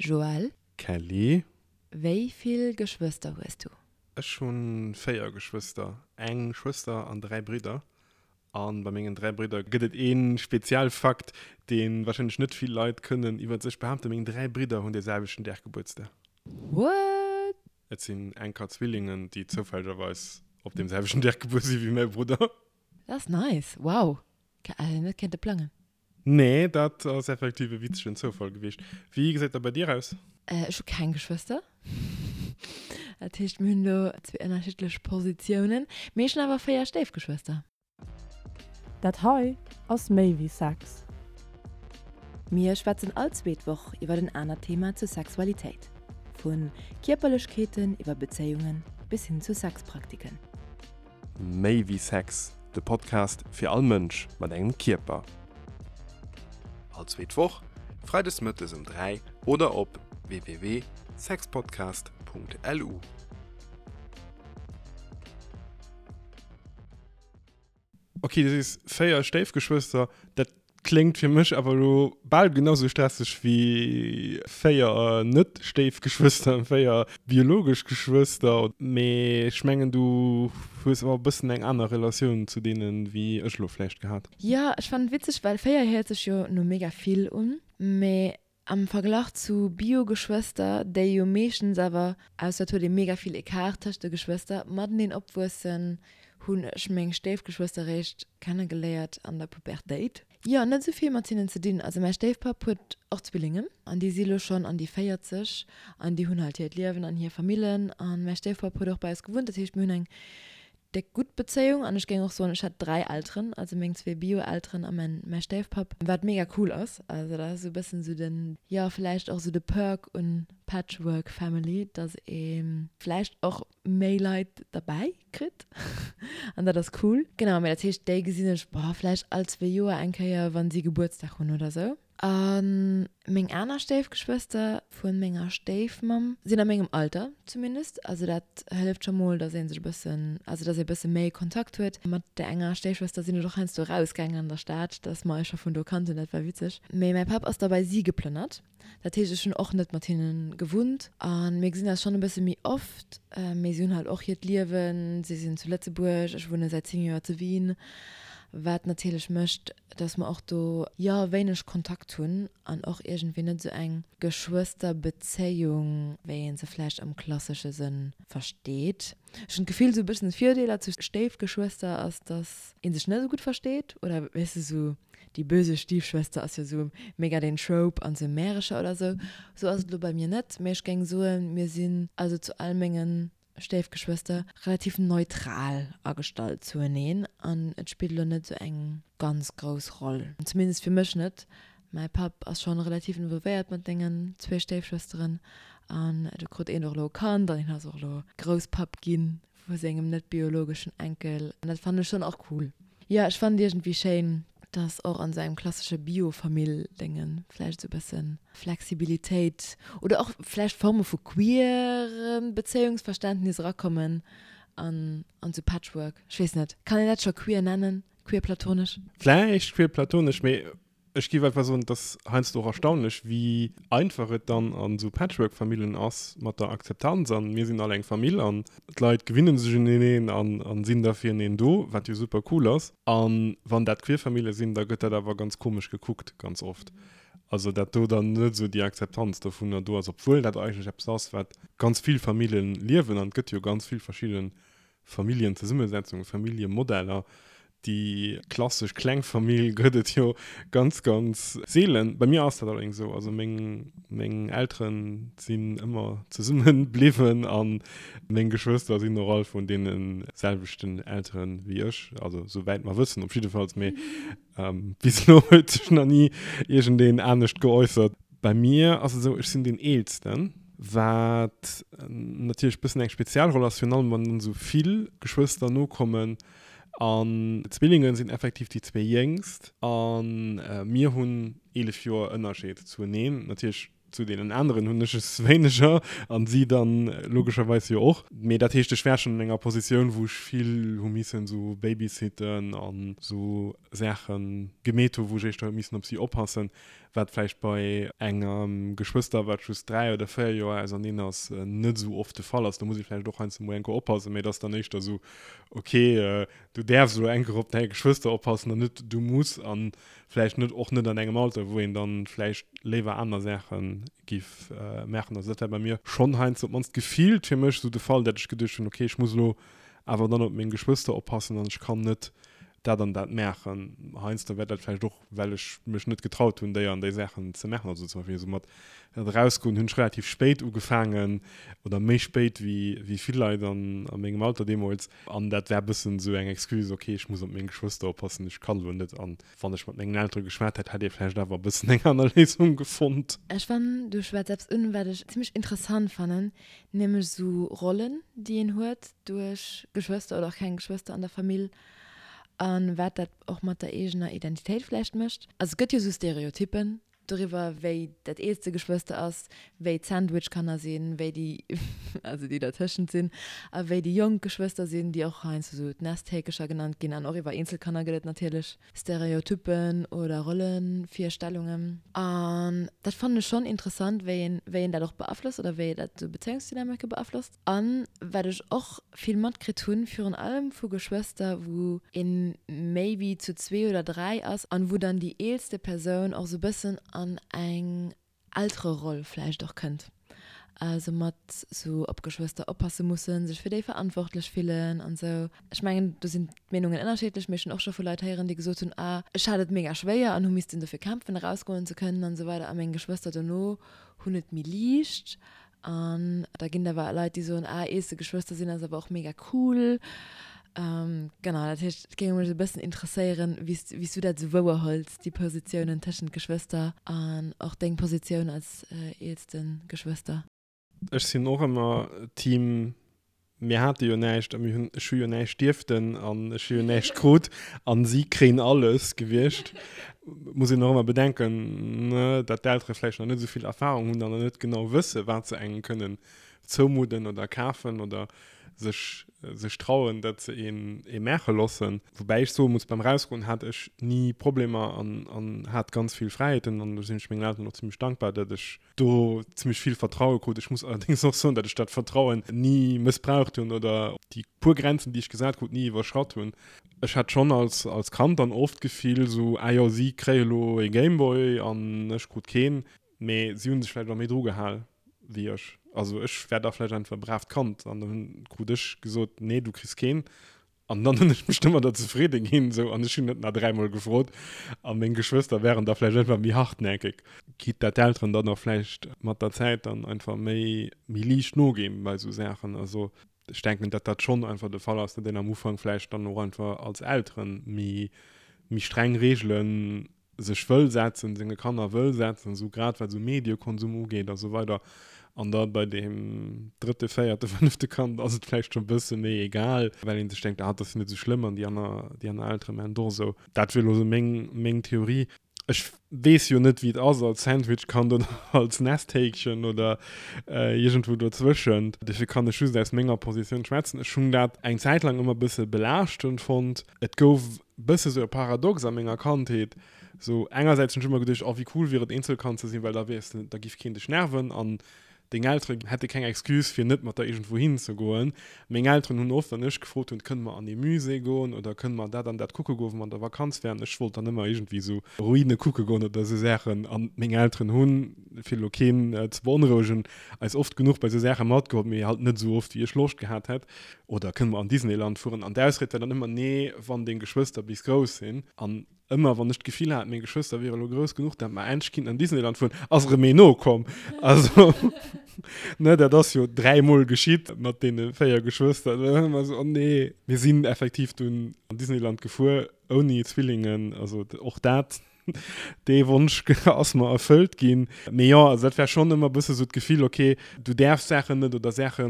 Joël. Kelly. Wéi vill Geschwëster hues du? Ech hu 4 Geschwëster, eng Schwëster an 3 Bridder. A bei mengen 3 Bridder gëtt et ee Spezialfakt, dee warscheinlech net vill Leit kënnen iwwer sech behaapten, Meng 3 Bridder hunn dee selwechten Dag Gebuertsdag. What? Et sinn enker Zwillingen, déi zoufällegerweis op deem selwechten Dag gebuer si wéi mäi Brudder. Dat ass nice, wow! Hätt een net kéinte plangen. Nee, dat ass effektiv e witzegen Zoufall gewiescht. Wéi gesäit dat bei dir aus? Ech hu keng Geschwëster. Dat heescht, mir hunn do zwee ënnerschiddlech Positiounen. Mee ech hunn awer 4 Stéifgeschwëster. Dat hei ass méi wéi Sex. Mir schwätzen all zweet Woch iwwer en anert Thema zur Sexualitéit. Vu Kierperlechkeeten iwwer Bezéiungen bis hin zu Sexpraktiken. Méi wéi Sex, de Podcast fir all Mënsch mat engem Kierper. All zweet Woch, freides mëttes um 3 oder op www.sexpodcast.lu. Ok, du sees 4 Stéifgeschwëster, dat kléngt fir mech awer elo bal genau sou stresseg wéi 4 Net-Stéifgeschwëster, 4 biologesch Geschwëster. Mee ech mengen, du hues awer e bëssen eng aner Relatioun zu deenen, wéi ech elo vläicht gehat. Jo, ech fannen et witzeg, well 4 héiert sech jo no mega vill un, mee Am Verglach zu Bio-Geschwëster, déi jo meeschtens awer, ausser et huet ee mega vill Ecart tëscht de Geschwëster, mateneen opwuessen, hunn ech meng Stéifgeschwëster réischt kennegeléiert an der Pubertéit. Jo, net esou vill mat hinnen ze dinn. Also mäi Stéifpapp huet och Zwillingen an déi si lo schonn an déi 40 an déi hunn halt hiert Liewen an hir Famillen. An mäi Stéifpapp huet och bei eis gewunnt, dat heescht mir hunn eng déck gutt Bezéiung an ech géing och soen, ech hätt 3 Elteren, also meng zwee Bio-Elteren a mäin mäi Stéifpapp, wat mega cool ass. Also dat ass esou e bëssen esou den, jo vläicht och esou de Perk un Patchwork Family, dass ee vläicht och méi Leit derbäi kritt an dat ass cool. Genau, mee dat heescht déi gesinn ech, boah, vläicht all zwee Joer eng Kéier, wann si Gebuertsdag hunn oder esou. A meng aner Stéifgeschwëster vu menger Stéifmamm sinn a mengem Alter zumindest. Also dat hëlleft scho mol, dass ee sech e bëssen, also dass ee e bësse méi Kontakt huet. Mat där enger Stéifschwëster sinn ech och heiansdo erausgaangen an der Stad, dass mer eis scho vun do kannten, dat war witzeg. Mee mäi Papp ass da bei si geplënnert. Dat heescht, ech hunn och net mat hinne gewunnt. A mir gesinn eis schonn e bësse méi oft, mee si hunn halt och hiert Liewen. Si sinn zu Lëtzebuerg, ech wunne säit 10 Joer zu Wien, wat natierlech mécht, dass mer och do, jo, wéineg Kontakt hunn an och iergendwéi net esou eng Geschwësterbezéiung, wéi ee se vläicht am klassesche Sënn versteet. Ech hunn d'Gefill, esou e bëssen Virdeeler zu Stéifgeschwëster ass, dass ee sech net esou gutt versteet oder, weess de, esou déi böse Stiefschwester ass jo esou mega den Trope an esou Märecher oder esou. Esou ass et elo bei mir net, mee ech géing soen, mir sinn also zu all mengen Stéifgeschwëster relativ neutral agestallt zueneen an et spillt elo net esou eng ganz grouss Roll, zumindest fir mech net. Mäi Papp ass schonn relativ involvéiert mat sengen zwee Stéifschwësteren an do krut een och elo e Kand an hien ass och elo Grousspapp ginn vu sengem net biologeschen Enkel an dat fannen ech schonn och cool. Jo, ech fannen et iergendwéi schéin, dass och an esou engem klassesche Bio-Famill-Déngen vläicht esou e bësse Flexibilitéit oder och vläicht Forme vu queerem Bezéiungsverständnis erakommen an an esou Patchwork. Ech weess net, kann een dat scho queer nennen? Queer-platonesch? Vläicht queer-platonesch, mee Ech géif einfach soen, et ass heiansdo och erstaunlech, wéi einfach et dann an esou Patchwork-Famillen ass mat der Akzeptanz an mir sinn all eng Famill an d'Leit gewinne sech uneneen an sinn da fireneen do, wat jo super cool ass. A wann dat queer Famille sinn, da gëtt dat awer ganz komesch gekuckt ganz oft. Also dat do dann net esou déi Akzeptanz dovunner do ass, obwuel dat eigentlech eppes ass, wat ganz vill Famille liewen an et gëtt jo ganz vill verschidde Familljenzesummesetzungen, Familljemodeller, déi klassesch kleng Famill gëtt et jo ganz, ganz seelen. Bei mir ass dat allerdéngs esou, also meng, meng Eltere sinn ëmmer zesumme bliwwen a meng Geschwëster sinn och all vun deene selwechten Eltere wéi ech, also souwäit mer wëssen op jiddefalls, mee bis elo huet sech nach ni iergendeen anescht geäussert. Bei mir ass et esou, ech sinn deen Eelsten, wat natierlech e bëssen eng speziell Roll ass, virun allem wann dann esou vill Geschwëster nokommen. An d'Zwillinge sinn effektiv déi zwee Jéngst a mir hunn 11 Joer Ënnerscheed zueneen. Natierlech. Zu deenen aneren hunn ech es wéineger an si dann logescherweis jo och. Mee dat heescht, ech war schonn an enger Positioun, wou ech vill hu missen esou babysitten an esou Saache gemeet hu, wou ech éischter hu missen op si oppassen, wat vläicht bei engem Geschwëster, wat just 3 oder 4 Joer auserneen ass, net esou oft de Fall ass. Do muss ee vläicht och heiansdo mol eng Kéier oppassen, mee et ass dann éischter esou, ok, du däerfs elo eng Kéier op däi Geschwëster oppassen an net du muss. An vläicht net och net an engem Alter, wou een dann vläicht léiwer aner Saache giff maachen. Also dat war bei mir schonn heiansdo, op d'mannst gefillt fir mech, esou de Fall, dat ech geduecht hunn, okay, ech muss elo awer dann op meng Geschwëster oppassen an ech kann net dat an dat maachen. Heiansdo war dat vläicht och, well ech mech net getraut hunn, déi an déi Saachen ze maachen. Also zum Beispill esou mat erausgoen hunn ech relativ spéit ugefaangen oder méi spéit wéi wéi vill Leit an a mengem Alter deemools. An dat war e bëssen esou eng Excuse, okay, ech muss op meng Geschwëster oppassen, ech kann elo net. An wann ech mat mengen Eltere geschwat hätt, hätt ee vläicht awer e bëssen eng aner Léisung gefonnt. Ech fannen, du schwätz eppes un, wat ech zimmlech interessant fannen, nämlech esou Rollen, déi een huet duerch Geschwëster oder och keng Geschwëster an der Famill a wat dat och mat der eegener Identitéit vläicht mécht. Also et gëtt jo esou Stereotyppen, doriwwer wéi dat eelste Geschwëster ass, wéi d'Sandwich-Kanner sinn, wéi déi, also déi dertëschent sinn, a wéi déi jonk Geschwëster sinn, déi och heiansdo sou d'Nesthäkecher genannt ginn. An och iwwer Eenzelkanner gëtt et natierlech Stereotyppen oder Rollevirstellungen. An dat fannen ech schonn interessant, wéi een, wéi een dat och beaflosst oder wéi dat sou Bezéiungsdynamike beaflosst. An wat ech och vill matkritt hunn, virun allem vu Geschwëster, wou een méi wéi zu zwee oder dräi ass an wou dann déi eelste Persoun och sou bëssen an eng Eltereroll vläicht och kënnt, also mat sou op Geschwëster oppasse mussen, sech fir déi verantwortlech fillen an sou. Ech mengen do sinn d'Meenungen ënnerschiddlech, mee ech hunn och scho vu Leit héieren, déi gesot hunn, ah ech hat et mega schwéier an hu missten dofir kämpfen erausgoen ze kënnen an sou weider a meng Geschwëster dono hunn et méi liicht An da ginn et awer Leit, déi soen, ah, eelste Geschwëster sinn ass awer och mega cool. Genau, dat heescht, et géing mech e bëssen interesséieren, wéi s, wéi s du dat esou wouerhëls, déi Positiounen tëschent Geschwëster an och deng Positioun als eelste Geschwëster. Ech sinn och ëmmer Team Mir hate jo näischt a mir hunn, ech hu jo näischt dierften an ech hu jo näischt krut an si kréien alles gewiescht. Muss een och ëmmer bedenken, ne, datt d'Eltere vläicht nach net esou vill Erfahrung hunn an nach net genau wësse wat se engem kënnen zoumudden oder kafen oder sech, sech trauen, datt se een ee maache loossen. Woubäi ech soe muss, beim Rausgoen hat ech ni Problemer an, an hat ganz vill Fräiheeten an do sinn ech mengen Elteren och zimmlech dankbar, datt ech do zimmlech vill Vertraue krut. Ech muss allerdéngs och soen, datt ech dat Vertrauen ni mëssbraucht hunn oder déi puer Grenzen, déi ech gesat krut, ni iwwerschratt hunn. Ech hat schonn als, als Kand dann oft d'Gefill esou, ah jo, si kréie lo ee Gameboy an ech krut keen. Mee si hu sech vläicht och méi dru gehal wéi ech. Also ech war da vläicht einfach e braavt Kand an dann krut ech gesot, nee, du kriss keen. An dann hunn ech mech domadder zefridde ginn, esou, an ech hunn net nach dräimol gefrot. A meng Geschwëster wären da vläicht einfach méi hartnäckeg, quitte dat d'Elteren dann och vläicht mat der Zäit dann einfach méi, méi liicht noginn bei esou Saachen. Also ech denken, datt dat schonn einfach de Fall ass, datt een am Ufank vläicht dann och einfach als Elteren méi, méi streng Reegelen sech wëll setzen, senge Kanner wëll setzen, esou grad wat esou Mediekonsum ugeet a sou weider. An da bei deem drëtte, véierte, fënnefte Kand ass et vläicht scho e bësse méi egal, well ee sech denkt, ah, dat ass jo net esou schlëmm an déi aner, déi aner Eltere maachen et och esou. Dat wier elo esou meng, meng Theorie. Ech weess jo net, wéi et ass als Sandwichkand oder als Nesthäkchen oder iergendwou dozwëschent. Dofir kann ech just aus menger Positioun schwätzen. Ech hunn dat eng Zäit laang ëmmer e bësse belaaschtend fonnt. Et gouf bësse sou e Paradox a menger Kandheet. Sou engersäits hunn ech ëmmer geduecht, oh wéi cool wier et Eenzelkand ze sinn, well da wiers de, da giff keen dech nerven an deng Eltere hätte keng Excuse fir net mat der iergendwou hin ze goen. Meng Elteren hunn oft, wann ech gefrot hunn, kënne mer an ee Musée goen oder kënne mer dat an dat kucke goen, wou mer an der Vakanz wären, ech wollt dann ëmmer iergendwéi sou Ruine kucke goen oder sou Saachen an meng Elteren hunn, fir elo keen ze beonrouegen, eis oft genuch bei sou Saache matgeholl, mee halt net sou oft wéi ech Loscht gehat hätt. Oder kënne mer an Disneyland fueren? An d'Ausried war dann ëmmer, Nee, wann deng Geschwëster bis grouss sinn. An ëmmer wann ech d'Gefill hat, meng Geschwëster wiere lo grouss genuch, dat mer endlech kinnten an Disneyland fueren, ass erëm een nokomm. Also, ne, dat ass jo dräimol geschitt mat deene 4 Geschwëster. Da war ëmmer esou, Oh nee. Mir sinn effektiv dunn an Disneyland gefuer, ouni Zwillingen. Also och dat Dee Wonsch ass mer erfëllt ginn. Mee jo, also dat war schonn ëmmer e bësse sou d'Gefill, ok, du däerfs Saachen net oder Saache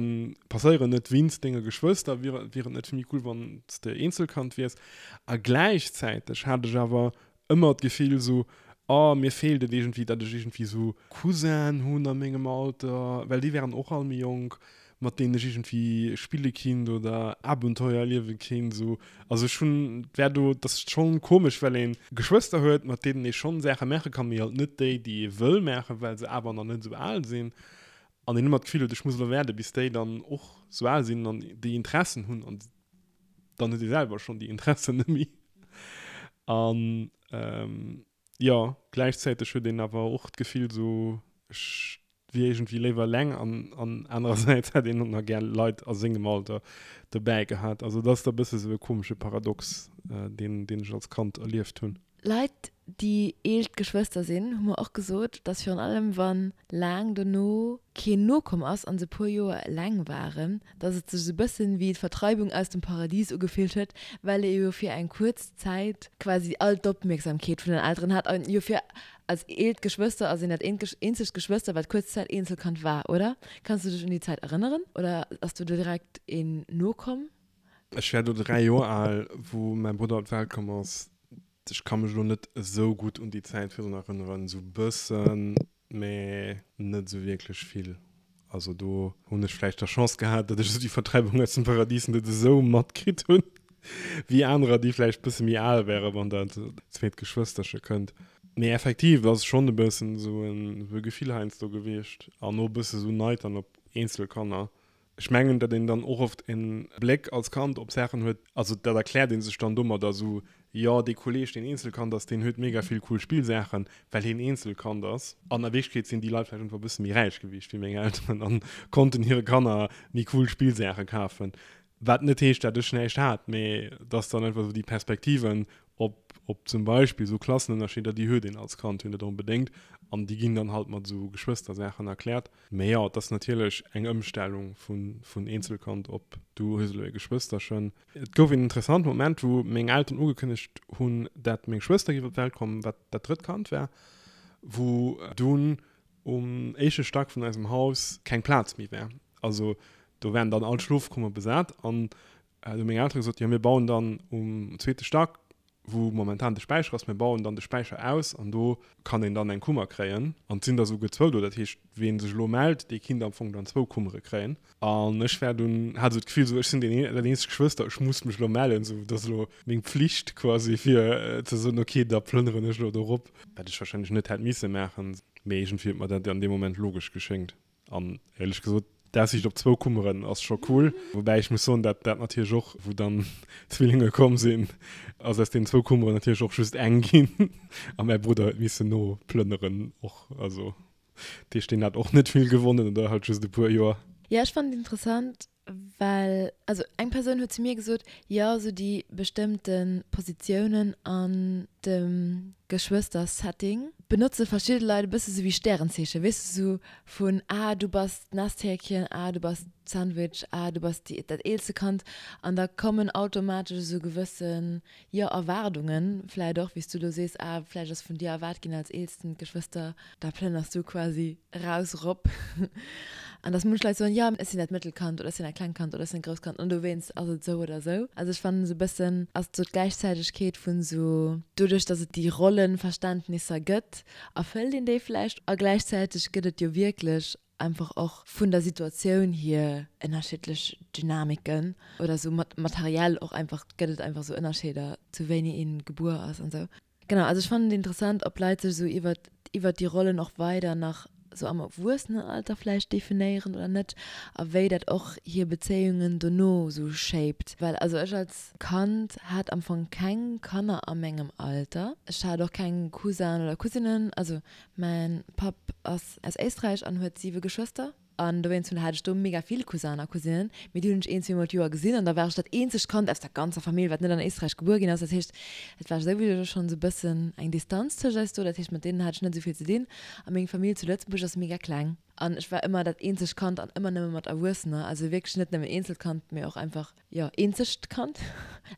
passéieren net wéinst denge Geschwëster, wier wier et net méi cool, wann s de Eenzelkand wiers? A gläichzäiteg hat ech awer ëmmer d'Gefill sou, Oh, mir feelt et iergendwéi, datt ech iergendwéi esou Cousinen hunn a mengem Alter, well déi wären och all méi jonk, mat deenen ech iergendwéi spille kinnt oder Abenteuer erliewe kinnt esou. Also ech hunn, et wär do, et ass schonn komesch, well ee Geschwëster huet, mat deenen ee schonn Saache maache kann, mee halt net déi, déi ee wëll maachen, well se awer nach net esou al sinn. An een ëmmer d'Gefill huet, ech muss elo waarde bis déi dann och esou al sinn an déi Interessen hunn an dann huet ee selwer schonn déi Interessen net méi. An jo, gläichzäiteg huet een awer och d'Gefill esou, ech wier iergendwéi léiwer eleng an an anerersäits hätt een och nach gär Leit a sengem Alter dobäi gehat. Also et ass da e bësse sou e komesche Paradox, deen deen ech als Kand erlieft hunn. Leit, déi eelst Geschwëster sinn, hu mer och gesot, dass virun allem wa laang dono keen nokomm ass an se puer Joer eleng waren, dass et sech esou bëssen wéi d'Vertreibung aus dem Paradies ugefillt huet, well ee jo fir eng kuerz Zäit quasi all d'Opmierksamkeet vun den Elteren hat an jo fir als eelt Geschwëster ass een dat eenzegt Geschwëster wat kuerz Zäit Eenzelkand war, oder? Kanns du dech un déi Zäit erënneren oder ass do direkt een nokomm? Ech war do 3 Joer al, wou mäi Brudder op d'Welt komm ass. Ech ka mech elo net esou gutt un déi Zäit virdrun erënneren, esou bëssen, mä net esou wierklech vill. Also do hunn ech vläicht der Chance gehat, datt ech esou déi Vertreibung aus dem Paradies net esou matkritt hunn, wéi anerer, déi vläicht bësse méi al wären, wann dat zweet Geschwësterche kënnt. Mee effektiv, et ass schonn e bëssen esou e Gefill heiansdo gewiescht an och e bësse esou Neid dann op eenzel Kanner, Ech mengen, datt een dann och oft e Bléck als Kand op Saachen huet, also dat erkläert ee sech dann domadder, esou, jo, dee Kolleeg, deen Eenzelkand ass, deen huet mega vill cool Spillsaachen, well hien Eenzelkand ass. An a Wierklechkeet sinn déi Leit vläicht einfach e bësse méi räich gewiescht wéi meng Elteren a konnten hire Kanner méi cool Spillsaache kafen. Wat net heescht, dat ech näischt hat, mee et ass dann einfach esou déi Perspektiven op, op zum Beispill esou Klassenënnerscheeder, déi huet een als Kand jo net onbedéngt an déi ginn dann halt mat esou Geschwëstersaachen erkläert. Mee jo, et ass natierlech eng Ëmstellung vun Eenzelkand op du hues elo e Geschwësterchen. Et gouf een interessante Moment, wou meng Elteren ugekënnegt hunn, dat meng Schwëster géif op d'Welt kommen, wat dat drëtt Kand war, wou dunn um éischte Stack vun eisem Haus keng Plaz méi war. Also do waren dann all d'Schlofkummere besat an do hu meng Eltere gesot, jo mir bauen dann um zweete Stack wou momentan de Späicher ass, mir bauen dann de Späicher aus an do kann een dann eng Kummer kréien. An et sinn der esouguer zwou do, dat heescht, ween sech elo mellt, dee kinnt am Fong dann zwou Kummere kréien. An ech war dunn, hat esou d'Gefill, esou ech sinn deen dat eenzegt Geschwëster, ech muss mech elo mellen, esou dat ass elo meng Pflicht quasi fir ze soen, okay, da plënneren ech elo do rop, wat ech wahrscheinlech net hätt misse maachen, mee iergendwéi huet mer dat an deem Moment logesch geschéngt. An éierlech gesot, d'Aussiicht op zwou Kummeren ass scho cool. Woubäi ech muss soen, dat dat natierlech och, wou dann d'Zwillinge komm sinn, ass aus deenen zwou Kummeren natierlech och just eng ginn. A mäi Brudder huet missen noplënneren och. Also dat heescht, deen hat och net vill gewonnen oder halt just e puer Joer. Jo, ech fannen et interessant, Well, also eng Persoun huet zu mir gesot, jo esou déi bestëmmte Positiounen an dem Geschwëster-Setting benotze verschidde Leit e bësse sou wéi Stärenzeechen, weess de, sou vun ah du bass d'Nesthäkchen, ah du bass d'Sandwich, ah du bass déi, dat eelste Kand an da kommen automatesch esou gewëssen, jo, Erwaardungen vläit och, wéi s du elo sees, ah vläicht ass vun dir erwaart ginn als eelsten Geschwëster, da plënners du quasi raus rop an dass munch Leit soen, jo ech sinn dat Mëttelkand oder ech sinn dat klengt Kand oder ech sinn dat grousst Kand an dowéinst ass et esou oder esou. Also ech fannen esou e bëssen ass esou d'Gläichzäitegkeet vun esou doduerch dass et déi Rollenverständnisser gëtt, erfëllt een déi vläicht a gläichzäiteg gëtt et jo wierklech einfach och vun der Situatioun hier ënnerschiddlech Dynamiken oder esou materiell och einfach gëtt et einfach esou Ënnerscheeder zu wéini een gebuer ass an esou. Genau, also ech fannen et interessant, ob Leit sech esou iwwert iwwert déi Rollen och weider nach esou am Erwuessenenalter vläicht definéieren oder net a wéi dat och hir Bezéiungen dono esou shaped. Well also ech als Kand hat am Fong keng Kanner a mengem Alter. Ech hat och keng Cousin oder Cousinen. Also mäin Papp ass aus Éisträich an huet siwe Geschwëster. An dowéinst hunn hat ech do mega vill Cousinen a Cousinen, mee déi hunn ech een, zweemol d'Joer gesinn an da war ech dat eenzegt Kand aus der ganzer Famill, wat net an Éisträich gebuer ginn ass. Dat heescht, et war souwisou schonn esou e bëssen eng Distanz tëscht eis do. Dat heescht, mat deenen hat ech net esou vill ze dinn. A meng Famill zu Lëtzebuerg ass mega kleng an ech war ëmmer dat eenzegt Kand an ëmmer nëmme mat Erwuessener. Also wierklech net nëmmen Eenzelkand, mee och einfach, jo, eenzegt Kand.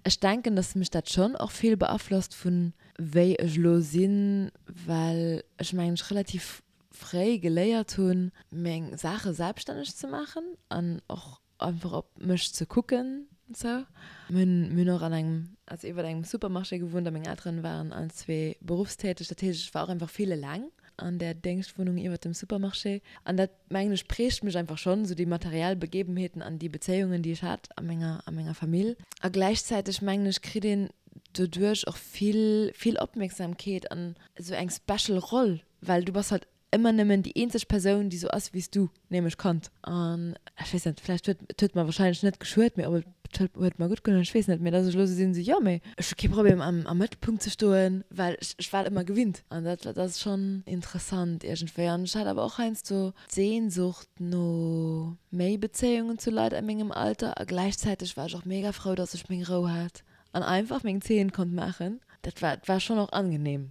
Ech denken, dass mech dat schonn och vill beaflosst vun wéi ech elo sinn, well ech mengen ech relativ fréi geléiert hunn, meng Saache selbststänneg ze maachen an och einfach op mech ze kucken. Sou. Mir hunn, mir hunn och an engem, also iwwert engem Supermarché gewunnt a meng Elteren waren allen zwee berufstäteg. Dat heescht, ech war och einfach vill eleng an där Déngschtwunnung iwwert dem Supermarché. An dat, mengen ech, prägt mech einfach schonn, sou déi materiell Begebenheeten an déi Bezéiungen, déi ech hat a menger, a menger Famill. A gläichzäiteg, mengen ech, kritt een doduerch och vill, vill Opmierksamkeet an esou eng special Roll, well du bass halt ëmmer nëmmen déi eenzeg Persoun, déi sou ass wéi s du, nämlech Kand. An ech weess net, vläicht huet, et huet mer wahrscheinlech net geschuet, mee ob et huet, huet mer gutt gedoen, ech weess net, mee dass ech elo sou sinn, sou jo, mee ech hu kee Problem am, am Mëttelpunkt ze stoen, well ech, ech war et ëmmer gewinnt. An dat, dat ass schonn interessant iergendwéi. An ech hat awer och heiansdo d'Sehnsucht no méi Bezéiungen zu Leit a mengem Alter a gläichzäiteg war ech och mega frou, dass ech meng Rou hat an einfach meng Zeen konnt maachen. Dat war, war schonn och angenehm.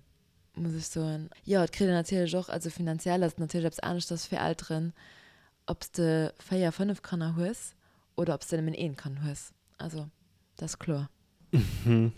muss ech soen. Jo, et kritt een natierlech och, also finanziell ass et natierlech eppes aneschters fir Elteren, ob s de 4, 5 Kanner hues oder ob s de nëmmen eent Kand hues. Also, dat ass kloer.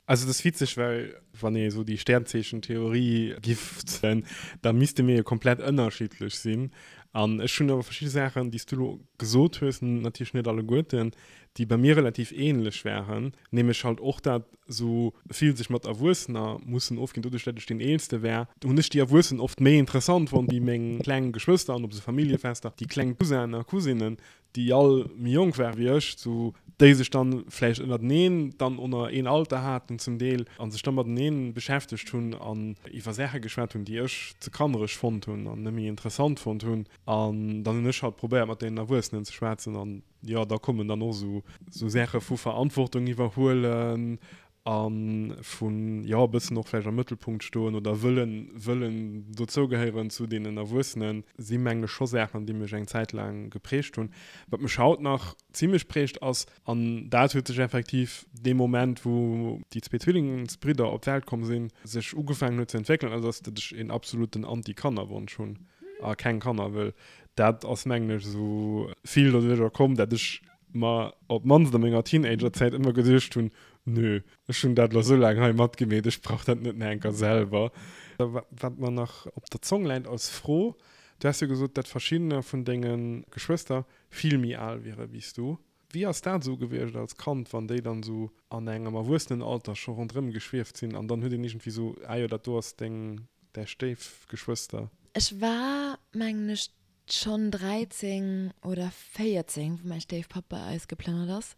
Also et ass witzeg, well wann ee sou déi Sternzeechentheorie giff zéien, da misste mir jo komplett ënnerschiddlech sinn. An ech hunn awer verschidde Saachen, déi s du elo gesot hues, natierlech net alleguerten, déi bei mir relativ ähnlech waren, nämlech halt och dat sou vill sech mat Erwuessener mussen ofginn. Doduerch dat ech deen Eelste war, hunn ech déi Erwuessen oft méi interessant fonnt wéi meng kleng Geschwëster an op sou Familljefester déi kleng Cousinen a Cousinen, déi all méi jonk ware wéi ech, sou déi sech dann vläicht ënnerteneen dann oner een Alter haten zum Deel a sech da mateneen beschäftegt hunn an iwwer Saache geschwat hunn, déi ech ze kannereg fonnt hunn an net méi interessant fonnt hunn. An dann hunn ech halt probéiert mat deenen Erwuessenen ze schwätzen an jo, da kommen dann och esou esou Saache vu Verantwortung iwwerhuelen a vun, jo, e bëssen och vläicht am Mëttelpunkt stoen oder wëllen, wëllen dozougehéieren zu deenen Erwuessenen, si mengen ech scho Saachen, déi mech eng Zäit laang geprägt hunn. Wat mech haut nach zimlech prägt ass, an dat huet sech effektiv dee Moment, wou déi zwee Zwillingsbridder op d'Welt komm sinn, sech ugefaangen huet ze entwéckelen, ass, ass, datt ech een absoluten Anti-Kanner-Wonsch hunn a keng Kanner wëll. Dat ass mengen ech esou vill doduercher komm, dat ech mer op d'mannst a menger Teenagerzäit ëmmer geduecht hunn, nö, ech hunn dat elo esou laang hei matgemeet, ech brauch dat net nach eng Kéier selwer. Wat mer nach op der Zong läit als Fro, Du has jo gesot, dat verschiddener vun denge Geschwëster vill méi al wiere wéi s du. Wéi ass dat esou gewiescht als Kand, wann déi dann esou an engem Erwuessenenalter scho ronderëm geschwieft sinn an dann huet een iergendwéi esou, ah jo, dat do ass deng, däi Stéifgeschwëster? Ech war, mengen ech, schonn 13 oder 14, wou mäi Stéifpapp bei eis geplënnert ass.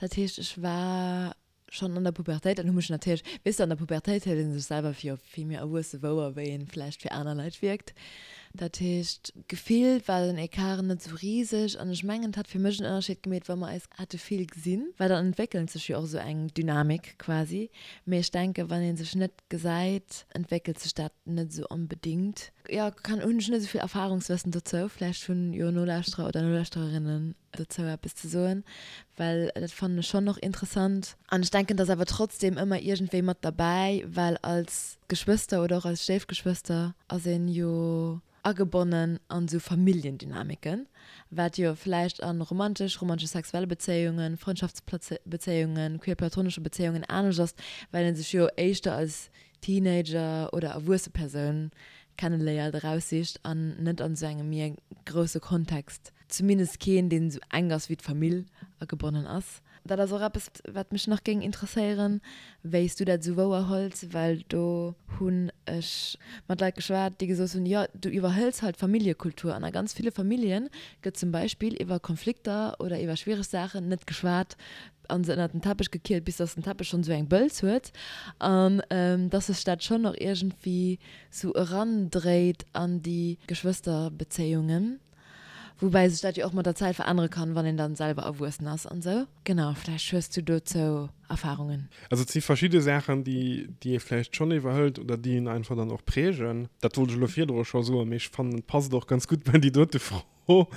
Dat heescht, ech war schonn an der Pubertéit an hu mech natierlech, weess de, an der Pubertéit hëlt ee sech selwer fir vill méi erwuesse wouer, wéi ee vläicht fir aner Leit wierkt. Dat heescht, gefillt war den Ecart net esou riseg an ech mengen, et hat fir mech en Ënnerscheed gemeet, wa mer eis hätte vill gesinn, well dann entwéckelt sech jo och esou eng Dynamik quasi. Mee ech denken, wann ee sech net gesäit, entwéckelt sech dat net esou onbedéngt. Jo, kann, hunn ech net esou vill Erfahrungswëssen dozou. Vläicht hunn jo Nolauschterer oder Nolauschtererinnen dozou eppes ze soen, well dat fannen ech schonn och interessant. An ech denken, et ass awer trotzdem ëmmer iergendwéi mat derbäi, well als Geschwëster oder och als Stéifgeschwëster ass een jo agebonnen an esou Familljendynamiken, wat jo vläicht a romantesch, romantesch-sexuelle Bezéiungen, Frëndschaftsbezéiungen, queer-platonesche Bezéiungen anescht ass, well ee sech jo éischter als Teenager oder erwuesse Persoun kenneléiert, eraussicht an net an esou engem méi grousse Kontext, zumindest keen, deen esou enk ass wéi d'Famill, agebonnen ass. Dat ass och eppes, wat mech nach géing interesséieren, wéi s du dat esou wouer hëls, well do hunn ech mat Leit geschwat, déi gesot hunn, jo, du iwwerhëls halt d'Familljekultur an a ganz ville Famillje gëtt zum Beispill iwwer Konflikter oder iwwer schwiereg Saachen net geschwat a se ënnert den Teppech gekiert, bis dass den Teppech schonn esou eng Bëlz huet an dass sech dat schonn och iergendwéi sou erandréit an déi Geschwësterbezéiungen. Woubäi sech dat jo och mat der Zäit verännere kann, wann een dann selwer erwuessen ass an sou. Genau, vläicht hues du dozou Erfahrungen. Also et si verschidde Saachen, déi déi ee vläicht schonn iwwerhëlt oder déi een einfach dann och prägen. Dat wollt ech elo virdru scho soen, mee ech fannen et passt och ganz gutt bei déi dote Fro.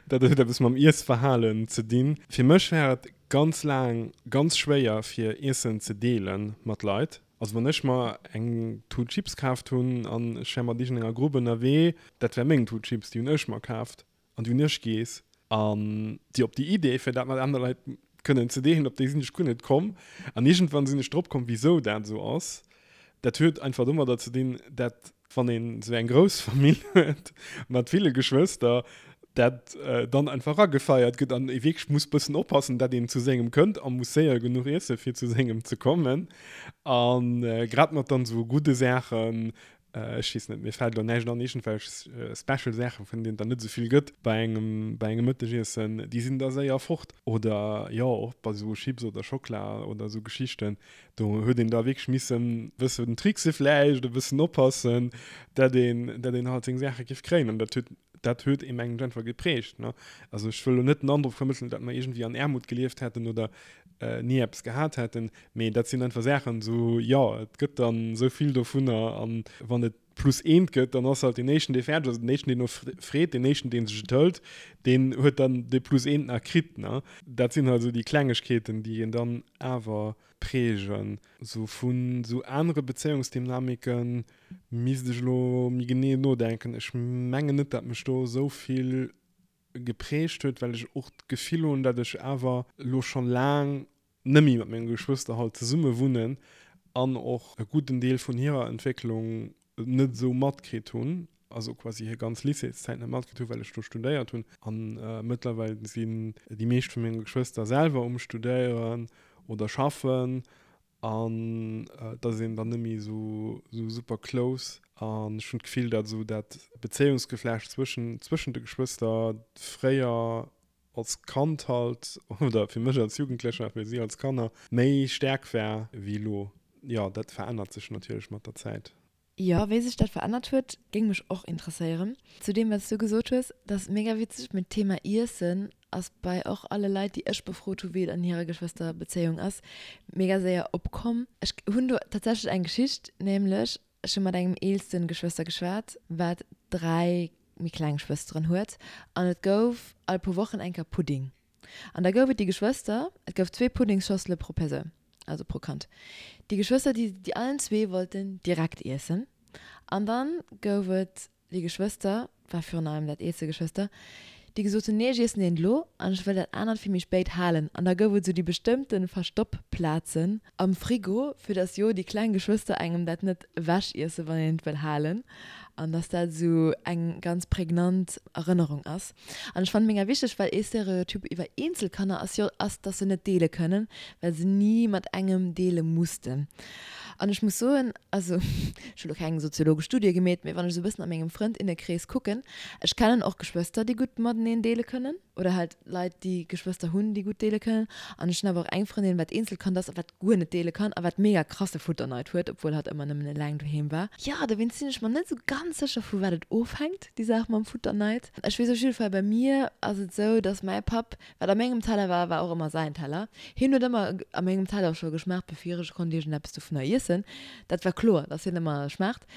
Dat huet eppes mam Iessverhalen ze dinn. Fir mech war et ganz laang ganz schwéier fir Iessen ze deele mat Leit. Also wann ech mer eng Tut Chips kaaft hunn an ech wär mat iergendenger Grupp ënnerwee, dat wär meng Tut Chips, déi hunn ech mer kaaft an déi hunn ech geess. An déi op déi Idee fir dat mat aner Leit kënnen ze deelen, op déi sinn ech guer net komm. An iergendwann sinn ech drop komm, wisou dat esou ass. Dat huet einfach domadder ze dinn, dat wann een esou eng grouss Famill huet mat ville Geschwëster, Dat dann einfach eragefeiert gëtt an ee wierklech muss bëssen oppassen, dat een zu sengem kënnt a muss séier genuch iesse fir zu sengem ze kommen. A grad mat dann esou gudde Saachen, ech weess net, mir fält elo näischt an, iergendwelch special Saachen, vun deenen et dann net esou vill gëtt bei engem, bei engem Mëttegiessen, déi sinn da séier fort. Oder jo, och bei esou Chips oder Schockela oder esou Geschichten, Do huet een da wierklech missen e bëssen trickse vläicht, e bëssen oppassen, dat een, dat een halt seng Saache géif kréien. An dat huet, dat huet ee mengen ech einfach geprägt, ne. Also ech wëll elo net den Androck vermëttelen, datt mer iergendwéi an Aarmut gelieft hätten oder ni eppes gehat hätten, mee dat sinn einfach Saachen esou, jo, et gëtt dann esou vill dovunner an wann et plus eent gëtt, dann ass halt deen éischten, dee fäerdeg ass, den éischten, deen no freet, deen éischten, dee sech et hëlt, deen huet dann dee plus eent nach kritt, ne. Dat sinn halt esou déi Klengegkeeten, déi een dann awer prägen. Sou vun sou anere Bezéiungsdynamike misst ech elo méi genee nodenken. Ech mengen net, dat mech do esou vill geprägt huet, well ech och d'Gefill hunn, dat ech awer elo schonn laang net méi mat menge Geschwëster halt zesumme wunnen an och e gudden Deel vun hirer Entwécklung net esou matkritt hunn, also quasi hir ganz Lycéeszäit net matkritt hunn, well ech do studéiert hunn. A mëttlerweil sinn déi meescht vu menge Geschwëster selwer um Studéieren oder schaffen an et ass een dann net méi esou super close. An ech hunn d'Gefill, datt esou dat Bezéiungsgeflecht zwëschen zwëschen de Geschwëster fréier als Kand halt, oder fir mech als Jugendlecher a fir si als Kanner, méi staark war wéi elo. Jo, dat verännert sech natierlech mat der Zäit. Jo, wéi sech dat verännert huet, géing mech och interesséieren. Zu deem, wat s du gesot hues, dat ass mega witzeg, mee d'Thema Iessen ass bei och alle Leit, déi ech befrot hu wéi et an hirer Geschwësterbezéiung ass, mega séier opkomm. Ech hunn do tatsächlech eng Geschicht, nämlech Ech hu mat engem eelsten Geschwëster geschwat, wat 3 méi kleng Schwësteren huet, an et gouf all puer Wochen eng Kéier Pudding. An da gouf et déi Geschwëster, et gouf zwee Puddingschossele pro Persoun, also pro Kand, déi Geschwëster, déi déi allen zwee wollten direkt iessen. An dann gouf et déi Geschwëster, war virun allem dat eelste Geschwëster, déi gesot hunn, nee ech iessen eent elo an ech wëll dat anert fir méi spéit halen. An da gouf et esou déi bestëmmte Verstoppplazen am Frigo, fir datt jo déi kleng Geschwëster engem dat net ewech iessen, wann een et wëll halen. An datt dat esou eng ganz prägnant Erënnerung ass. An ech fannen mega wichteg, well ee Stereotyp iwwer Eenzelkanner ass jo, ass, datt se net deele kënnen, well se ni mat engem deele mussten. An ech muss soen, also ech hu lo keng soziologesch Studie gemeet, mee wann ech esou e bëssen a mengem Frëndinne-Krees kucken, ech kennen och Geschwëster, déi gutt mateneen deele kënnen oder halt Leit, déi Geschwëster hunn, déi gutt deele kënnen. An ech hunn awer och eng Frëndin, wat Eenzelkand ass a wat guer net deele kann a wat mega krasse Futterneid huet, obwuel hatt ëmmer nëmmen eleng doheem war. Jo, dowéinst sinn ech mer net esou ganz sécher, vu wat et ofhänkt, déi Saach mam Futterneid. Ech weess op jidde Fall, bei mir ass et esou, dass mäi Papp Wat a mengem Teller war, war och ëmmer säin Teller. Hien huet ëmmer a mengem Teller scho geschmaacht, bevir ech konnt iergendeppes dovunner iessen. Dat war kloer, dass hien ëmmer schmaacht.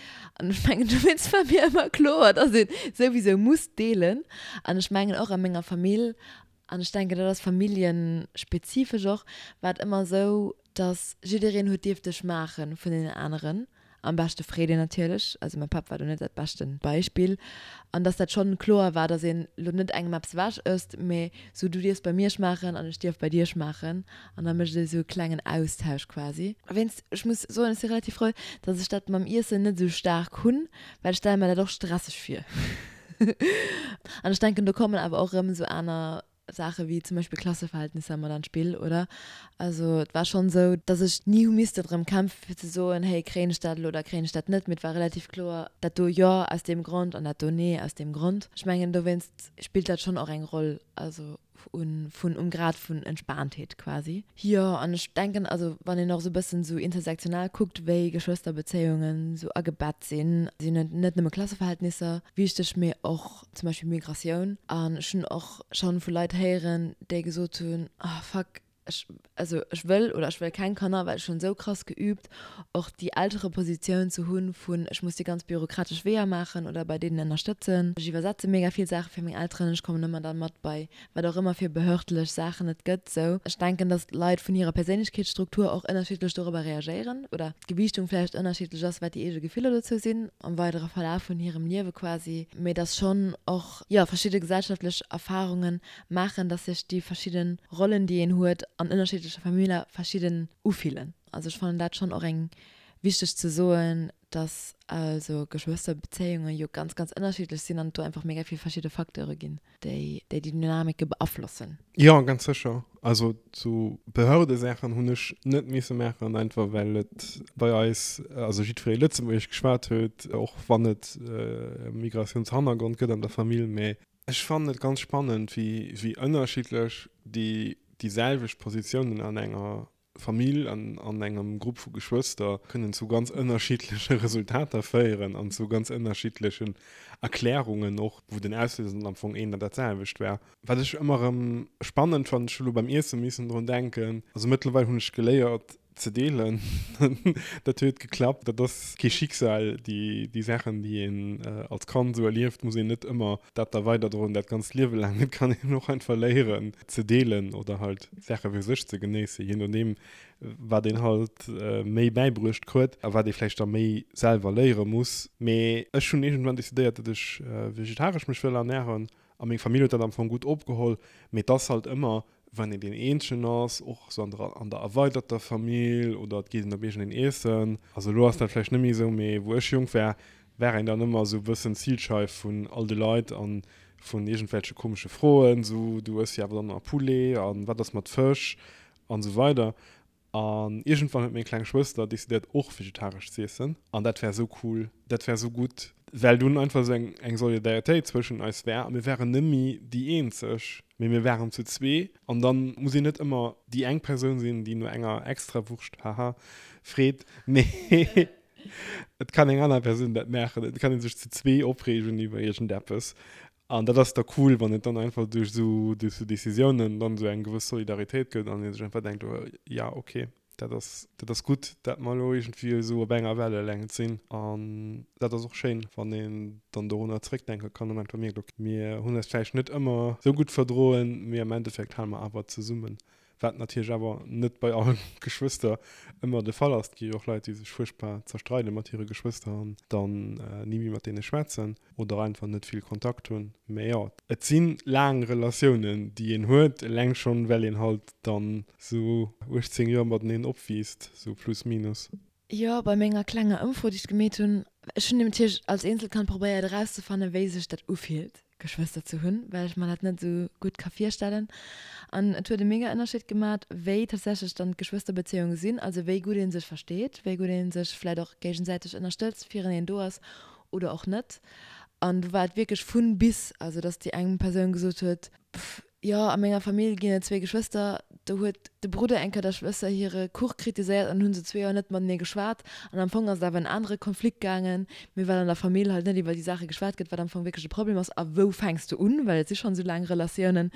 An ech mengen, dowéinst war mir ëmmer kloer, dass een souwisou muss deelen. An ech mengen och a menger Famill, an ech denken, dat ass familljenspezifesch och, war et ëmmer esou, dass jiddereen huet dierfte schmaache vun deenen aneren, am beschte freet een natierlech, also mäi Papp war do net dat beschten Beispill, an dass dat schonn kloer war, dass een lo net engem eppes ewech ësst, mee sou du dierfs bei mir schmaachen an ech dierf bei dir schmaachen an da mécht ee sou e klengen Austausch quasi. Wéinst, ech muss soen, ech si relativ frou, dass ech dat mam Iessen net sou staark hunn, well ech stelle mer dat och stresseg vir an ech denken do kommen awer och erëm sou aner Saache wéi zum Beispill Klasseverhältnisser mat an d'Spill, oder? Also et war schonn esou, datt ech ni hu misste drëm kämpfe fir ze soen, hey, kréien ech dat elo oder kréien ech dat net, mee et war relativ kloer, dat do jo aus deem Grond an dat do nee aus deem Grond. Ech mengen dowéinst spillt dat schonn och eng Roll, also un vun um Grad vun Entspaantheet quasi. Jo, an ech denken, also wann een och esou e bëssen esou intersektional kuckt, wéi Geschwësterbezéiungen esou agebett sinn, sinn et net nëmme Klasseverhältnisser wichteg, mee och zum Beispill Migratioun. An ech hunn och schonn vu Leit héieren, déi gesot hunn, oh fuck, ech, also ech wëll oder ech wëll keng Kanner, well ech hunn esou krass geüübt, och déi Elterepositioun ze hunn vun ech muss déi ganz bürokratesch Weeër maachen oder bei deenen ënnerstëtzen. Ech iwwersetze mega vill Saache fir meng Elteren, ech kommen ëmmer dann mat bei wat och ëmmer fir behördlech Saachen et gëtt. Sou, ech denken, dass Leit vun hirer Perséinlechkeetsstruktur och ënnerschiddlech dorobber reagéieren oder d'Gewiichtung vläicht ënnerschiddlech ass, wat déi eege Gefiller dozou sinn am weidere Verlaf vun hirem Liewe quasi, mee dass schonn och, jo, verschidde gesellschaftlech Erfarunge maachen, dass sech déi verschidde Rollen, déi een huet an ënnerschiddleche Familler, verschidden ufillen. Also ech fannen dat schonn och eng wichteg ze soen. Dass also Geschwësterbezéiunge jo ganz, ganz ënnerschiddlech sinn an et do einfach mega vill verschidde Facteure ginn, déi déi Dynamike beaflossen. Jo, ganz sécher. Also sou Behördesaachen hunn ech net misse maachen, einfach well et bei eis, also jiddweree Lëtzebuergesch geschwat huet, och wann et e Migratiounshannergrond gëtt an der Famill. Mä ech fannen et ganz spannend, wéi wéi ënnerschiddlech déi déi selwecht Positiounen an enger Famill an an engem Grupp vu Geschwëster kënnen zu ganz ënnerschiddleche Resultater féieren an zu ganz ënnerschiddlechen Erklärungen och, wou den Auslöser dann am Fong een an dat selwecht war. Wat ech ëmmer erëm spannend fannen, ech hu lo beim Iesse missen drun denken, also mëttlerweil hunn ech geléiert ze deelen, dat huet geklappt, dat ass kee Schicksal, déi déi Saachen déi een als Kand esou erlieft, muss een net ëmmer dat da weiderdroen dat ganzt Liewe laang, et kann een och einfach léieren ze deelen oder halt Saache fir sech ze genéissen, je nodeem wat een halt méi bäibruecht kruet a wat ee vläicht da méi selwer léiere muss. Mee ech hunn iergendwann decidéiert, datt ech vegetaresch mech wëll ernären a meng Famill huet dat am Fong gutt opgeholl. Mee et ass halt ëmmer, wann een deen Eenzegen ass, och esou an der an der erweiderter Famill oder et geet een op iergendeen Iessen, also elo ass dat vläicht net méi esou, mee wou ech jonk war, war een dann ëmmer esou e bëssen d'Zilscheif vun all de Leit an vun iergendwelche komesche Froen, esou du ëss jo awer dann nach Poulet an wat ass mat Fësch an esou weider. An iergendwann huet meng kleng Schwëster decidéiert och vegetaresch z'iessen an dat war esou cool, dat war esou gutt, well dunn einfach esou eng eng Solidaritéit zwëschen eis war a mir waren nëmmi déi eenzeg, mee mir waren zu zwee an dann muss een net ëmmer déi eng Persoun sinn, déi no enger Extrawurscht, haha, freet, mee Et kann eng aner Persoun dat maachen. Et kann ee sech zu zwee opreegen iwwer iergendeppes. An dat ass da cool, wann et dann einfach duerch esou, duerch esou Decisiounen dann esou eng gewëss Solidaritéit gëtt an ee sech einfach denkt, oh ja, okay, dat ass, dat ass gutt, dat mer elo iergendwéi esou op enger Wellelängt sinn. An dat ass och schéin, wann een dann dorunner zréckdenke kann an einfach mierkt, okay, mir hunn eis vläicht net ëmmer esou gutt verdroen, mee am Endeffekt hale mer awer zesummen. Wat natierlech awer net bei alle Geschwëster ëmmer de Fall ass. Et gi jo och Leit, déi sech fuerchtbar zerstreide mat hire Geschwëster an dann ni méi mat deene schwätzen oder einfach net vill Kontakt hunn. Mä jo, et si laang Relatiounen, déi een huet, eleng schonn, well een halt dann esou 18 Joer mateneen opwiisst, esou plus minus. Jo, bei menger klenger Ëmfro, déi ech gemeet hunn, ech hunn natierlech als Eenzelkand probéiert erauszefannen, wéi sech dat ufillt, Geschwëster ze hunn, well ech mer dat net esou gutt ka virstellen. An et huet e mega Ënnerscheed gemat, wéi tatsächlech dann d'Geschwësterbezéiunge sinn, also wéi gutt ee sech versteet, wéi gutt ee sech vläit och géigesäiteg ënnerstëtzt, fireneen do ass oder och net. An do war et wierklech vun bis, also dass déi eng Persoun gesot huet, Pff, jo, a menger Famill ginn et zwee Geschwëster, do huet de Brudder eng Kéier der Schwëster hire Kuch kritiséiert an hunn se zwee Joer net matenee geschwat. An am Fong ass et awer en anere Konflikt gaangen, mee well an der Famill halt net iwwer déi Saache geschwat gëtt, wat am Fong wierklech de Problem ass a wou fänks de un, well et si schonn esou laang Relatiounen,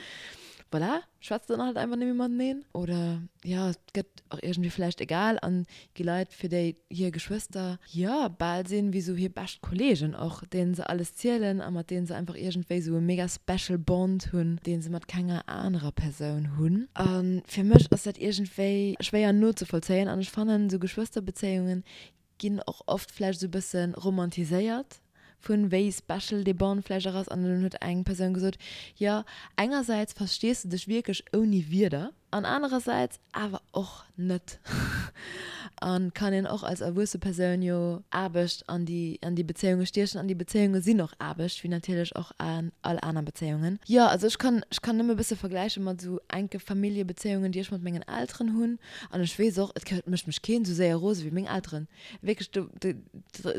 voilà, schwätzt dann halt einfach net méi mateneen oder jo, et gëtt och iergendwéi vläicht egal an gi Leit, fir déi hir Geschwëster, jo, bal sinn wéi sou hir bescht Kollegen och, deenen se alles zielen a mat deenen se einfach iergendwéi sou e mega special Bond hunn, dee se mat kenger anerer Persoun hunn. A fir mech ass dat iergendwéi schwéier nozevollzéien an ech fannen, sou Geschwësterbezéiungen ginn och oft vläicht esou e bësse romantiséiert vun wéi special dee Bond vläicht och ass. An dunn huet eng Persoun gesot, jo, engersäits verstees de dech wierklech ouni Wierder an anerersäits awer och net. An kann een och als erwuesse Persoun jo Aarbecht an déi an déi Bezéiunge stiechen. An déi Bezéiunge sinn och Aarbecht, wéi natierlech och all aner Bezéiungen. Jo, also ech kann ech kann nëmme e bësse vergläiche mat esou enke Familljebezéiungen, déi ech mat mengen Elteren hunn. An ech weess och, et mécht mech keen esou séier rose wéi meng Elteren. Wierklech, do,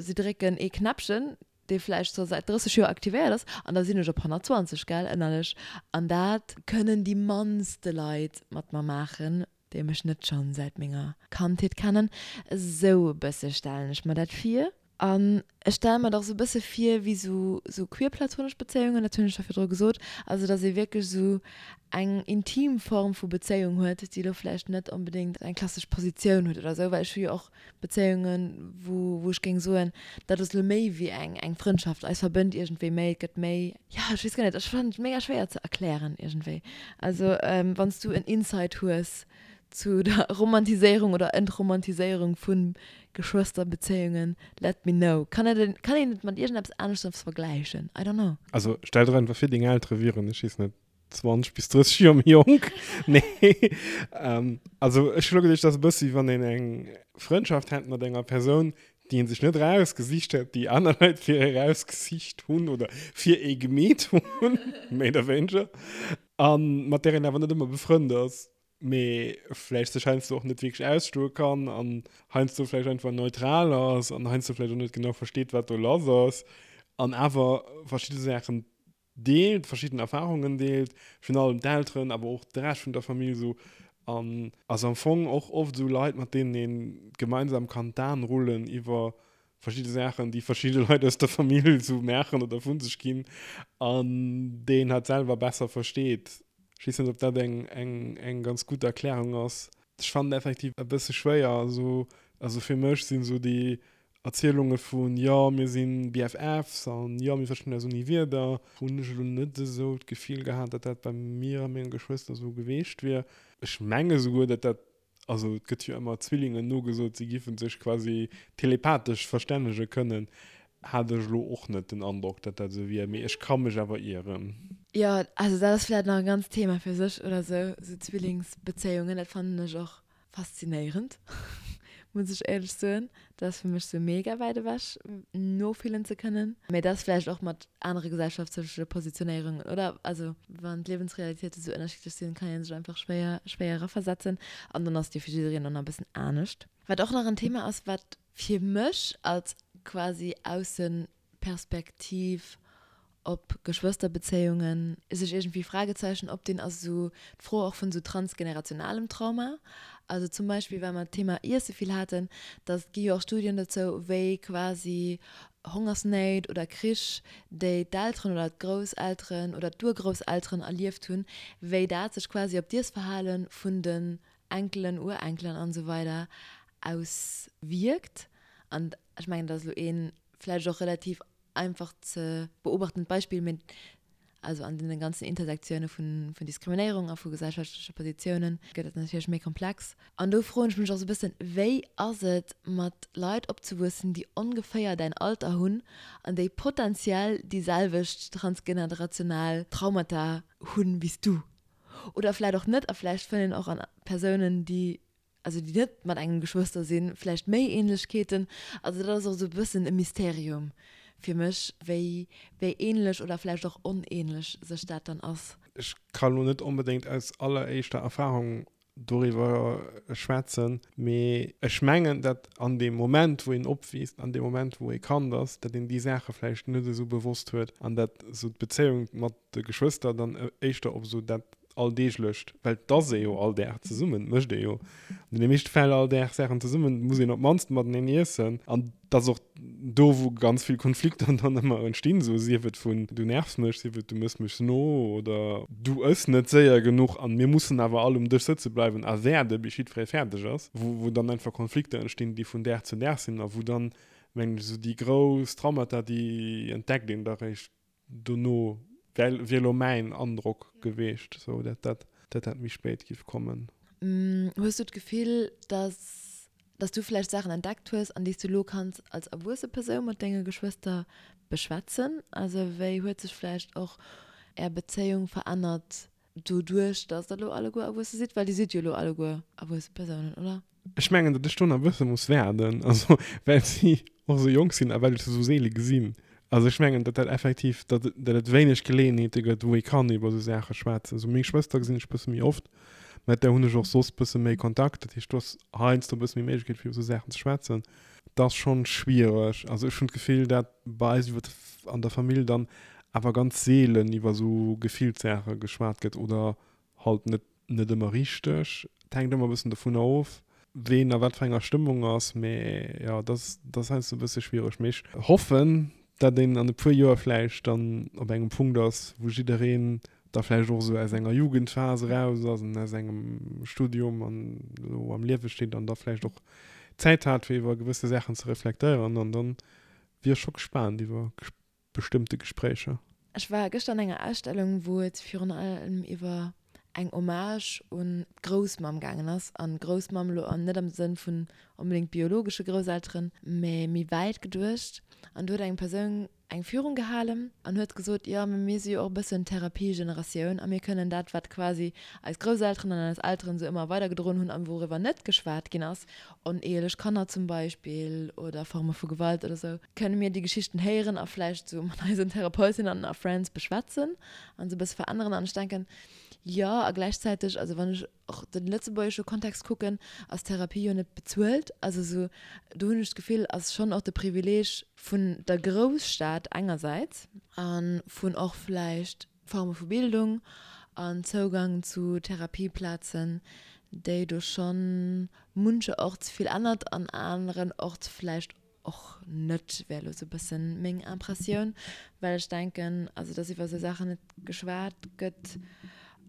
si drécken ee Knäppchen, dee vläicht scho säit 30 Joer aktivéiert ass, an da sinn ech op 120, gell, ënnerlech. An dat kënnen déi mannste Leit mat mer maachen, déi mech net schonn säit menger Kandheet kennen. Esou e bësse stellen ech mer dat vir. An ech stelle mer dat och sou e bësse vir wéi sou sou queer-platonesch Bezéiungen, dat hunn ech scho virdru gesot, also datt ee wierklech sou eng intim Form vu Bezéiung huet, déi elo vläicht net onbedéngt eng klassesch Positioun huet oder sou, well ech hu jo och Bezéiungen, wou wou ech géing soen, dat ass elo méi wéi eng eng Frëndschaft, eis verbënnt iergendwéi méi, et gëtt méi, jo ech weess guer net, ech fannen et mega schwéier ze erklären iergendwéi. Also wann s du en Insight hues zu der Romantiséierung oder Entromantiséierung vu Geschwësterbezéiungen, let me know. Kann et, kann een et mat iergendeppes aneschters vergläichen? I don't know. Also stell der einfach vir, deng Eltere wieren, ech weess net, 20 bis 30 Joer méi jonk. Nee. Also ech hu lo geduecht, dat ass e bëssi, wann een eng Frëndschaft hätt mat enger Persoun, Déi een sech net erausgesicht huet, déi aner Leit fir ee erausgesicht hunn oder fir ee gemeet hunn, méi oder wéineger, a mat där een awer net ëmmer befrënnt ass, mee vläicht sech heiansdo och net wierklech ausstoe kann an heiansdo vläicht einfach neutral ass an heiansdo vläicht och net genau versteet, wat do lass ass an awer verschidde Saachen deelt, verschidden Erfahrungen deelt, virun allem d'Elteren, awer och de Rescht vun der Famill esou an ass am Fong och oft esou Leit, mat deenen ee gemeinsam kann d'Aen rullen iwwer verschidde Saachen, déi verschidde Leit aus der Famill esou maachen oder vu sech ginn an déi een halt selwer besser versteet. Ech weess net, ob dat eng, eng, eng ganz gutt Erklärung ass. Ech fannen et effektiv e bësse schwéier, also, also fir mech sinn esou déi Erzielunge vun, jo mir si BFFs an jo mir verstinn eis ouni Wierder, hunn ech elo net esou d'Gefill gehat, datt dat bei mir a menge Geschwëster esou geweecht wier. Ech menge souguer, datt dat, also et gëtt jo ëmmer Zwillingen nogesot, si giffen sech quasi telepathesch verstännege kënnen, hat ech elo och net den Androck, datt dat esou wier, mee ech ka mech awer ieren. Jo, also dat ass vläicht nach e ganzt Thema fir sech oder esou, esou Zwillingsbezéiungen, dat fannen ech och Faszinéierend, muss ech éierlech soen. Dat ass fir mech sou mega wäit ewech, nofillen ze kënnen. Mee dat ass vläicht och mat anere gesellschaftleche Positionéierungen, oder? Also wann d'Liewensrealitéite sou ënnerschiddlech sinn, kann ee sech einfach schwéier, schwéier eraversetzen. An dann ass et jo fir jiddereen och nach e bëssen anescht. Wat och nach en Thema ass, wat fir mech als quasi Aussen Perspektiv op Geschwësterbezéiungen sech iergendwéi Fragezeichen opdinn, ass esou d'Fro och vun esou transgenerationalem Trauma. Also zum Beispill, well mer d'Thema Iesse vill haten, dass et gi jo och Studien dozou, wéi quasi Hongersnéit oder Krich, déi d'Elteren oder d'Grousselteren oder d'Urgrousselteren erlieft hunn, wéi dat sech quasi op d'Iessverhale vun den Enkelen, Urenkelen an esou weider auswierkt. An ech mengen, dat ass elo ee vläicht och relativ einfach ze beobachtend Beispill, mee also an deene ganzen Intersektioune vun Diskriminéierung a vu gesellschaftleche Positiounen gëtt et natierlech méi komplex. An do froen ech mech och esou e bëssen, wéi ass et mat Leit opzewuessen, déi ongeféier däin Alter hunn an déi potenziell déi selwecht transgenerational Traumata hunn wéi s du? Oder vläicht och net a vläicht fënnt een och an Persounen, déi also déi net mat engem Geschwëster sinn, vläicht méi Ähnlechkeeten. Also dat ass och esou e bëssen e Mysterium fir mech, wéi wéi ähnlech oder vläicht och onähnlech sech dat dann ass. Ech ka lo net onbedéngt aus alleréischter Erfahrung doriwwer schwätzen, mee ech mengen, datt an deem Moment, wou een opwiisst, an deem Moment, wou ee Kand ass, datt een déi Saache vläicht net esou bewosst huet an datt esou d'Bezéiung mat de Geschwëster dann éischter op esou dat Alldeeglecht, well et ass ee jo all Dag zesummen, et mécht ee jo an deene meeschte Fäll all Dag Saachen zesummen, et muss een op d'mannst mateneen iessen an et ass och do, wou ganz vill Konflikter dann ëmmer entstinn, esou sief et vun du nervs mech, sief et du méchs mech no oder du ëss net séier genuch an mir mussen awer all um Dësch sëtze bleiwen a waarde bis jiddweree fäerdeg ass, wou wou dann einfach Konflikter entstinn, déi vun Dag zu Dag sinn a wou dann, mengen ech, esou déi grouss Traumata, déi entdeckt een da réischt Dono wär wier elo mäin Androck geweecht, sou dat dat dat dat méi spéit giff kommen. Hues du d'Gefill, dass dass du vläicht Saachen entdeckt hues, an déi s du elo kanns als erwuesse Persoun mat denge Geschwëster beschwätzen? Also wéi huet sech vläicht och är Bezéiung verännert doduerch, dass der elo alleguer erwuesse sidd? Well dir sidd jo elo alleguer erwuesse Persounen, oder? Ech mengen, datt ech do nach e bësse muss waarden, also well si och esou jonk sinn a well ech se esou seele gesinn. Also ech mengen, datt dat effektiv, datt datt et wéineg Geleeënheete gëtt, wou ee kann iwwer esou Saache schwätzen. Also meng Schwëster gesinn ech e bësse méi oft, mat där hunn ech och soss e bësse méi Kontakt. Dat heescht, do ass heiansdo e bësse méi Méiglechkeet, fir iwwer esou Saachen ze schwätzen. Dat ass schonn schwiereg. Also ech hunn d'Gefill, datt bei eis iwwer an der Famill dann awer ganz seelen iwwer esou Gefillssaache geschwat gëtt oder halt net net ëmmer richteg. Et hänkt ëmmer e bëssen dovunner of, ween a wat fir enger Stëmmung ass. Mee jo, dat ass, dat ass heiansdo e bësse schwiereg. Mee ech hoffen, datt een an e puer Joer vläicht dann op engem Punkt ass, wou jiddereen da vläicht och esou aus enger Jugendphas eraus ass an aus engem Studium an elo am Liewe steet an da vläicht och Zäit hat, fir iwwer gewësse Saachen ze reflektéieren. An dann wier ech scho gespaant iwwer bestëmmte Gespréicher. Ech war gëschter an enger Ausstellung, wou et virun allem iwwer eng Hommage un d'Groussmamm gaangen ass. An Groussmamm elo net am Sënn vun onbedéngt biologesche Grousselteren, mä méi wäit geduecht. An do huet eng Persoun. eng Führung gehalen an huet gesot, jo, mee mir si jo och e bëssen d'Therapiegeneratioun a mir kënnen dat, wat quasi eis Grousselteren an eis Elteren esou ëmmer weidergedroen hunn an wouriwwer net geschwat ginn ass, onehelech Kanner zum Beispill oder Forme vu Gewalt oder esou, kënne mir déi Geschichten héieren a vläicht esou mat eisen Therapeutinnen a Friends beschwätzen an se e bësse veränneren. An ech denken, jo, a gläichzäiteg, also wann ech och de lëtzebuergesche Kontext kucken, ass Therapie jo net bezuelt. Also esou, do hunn ech d'Gefill, ass schonn och de Privileeg vun der Grousstad engersäits a vun och vläicht Forme vu Bildung an Zougang zu Therapieplazen, déi do schonn muncherorts vill ännert an anerenorts vläicht och net, wär elo sou e bëssen meng Impressioun, well ech denken, also dass iwwer esou Saachen net geschwat gëtt,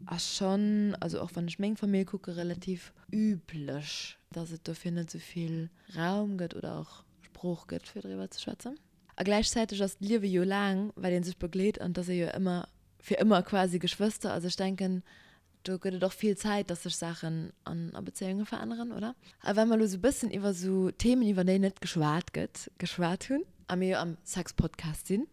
ass schonn, also och wann ech meng Famill kucke, relativ üblech, dass et dofir net esou vill Raum gëtt oder och Sprooch gëtt, fir driwwer ze schwätzen. A gläichzäiteg ass d'Liewe jo laang, well ee sech begleet an et ass ee jo ëmmer fir ëmmer quasi Geschwëster. Also ech denken, do gëtt et och vill Zäit, dass sech Saachen an a Bezéiunge veränneren, oder? A well mer elo sou bëssen iwwer sou Themen, iwwer déi net geschwat gëtt, geschwat hunn, a mir jo am Sex-Podcast sinn,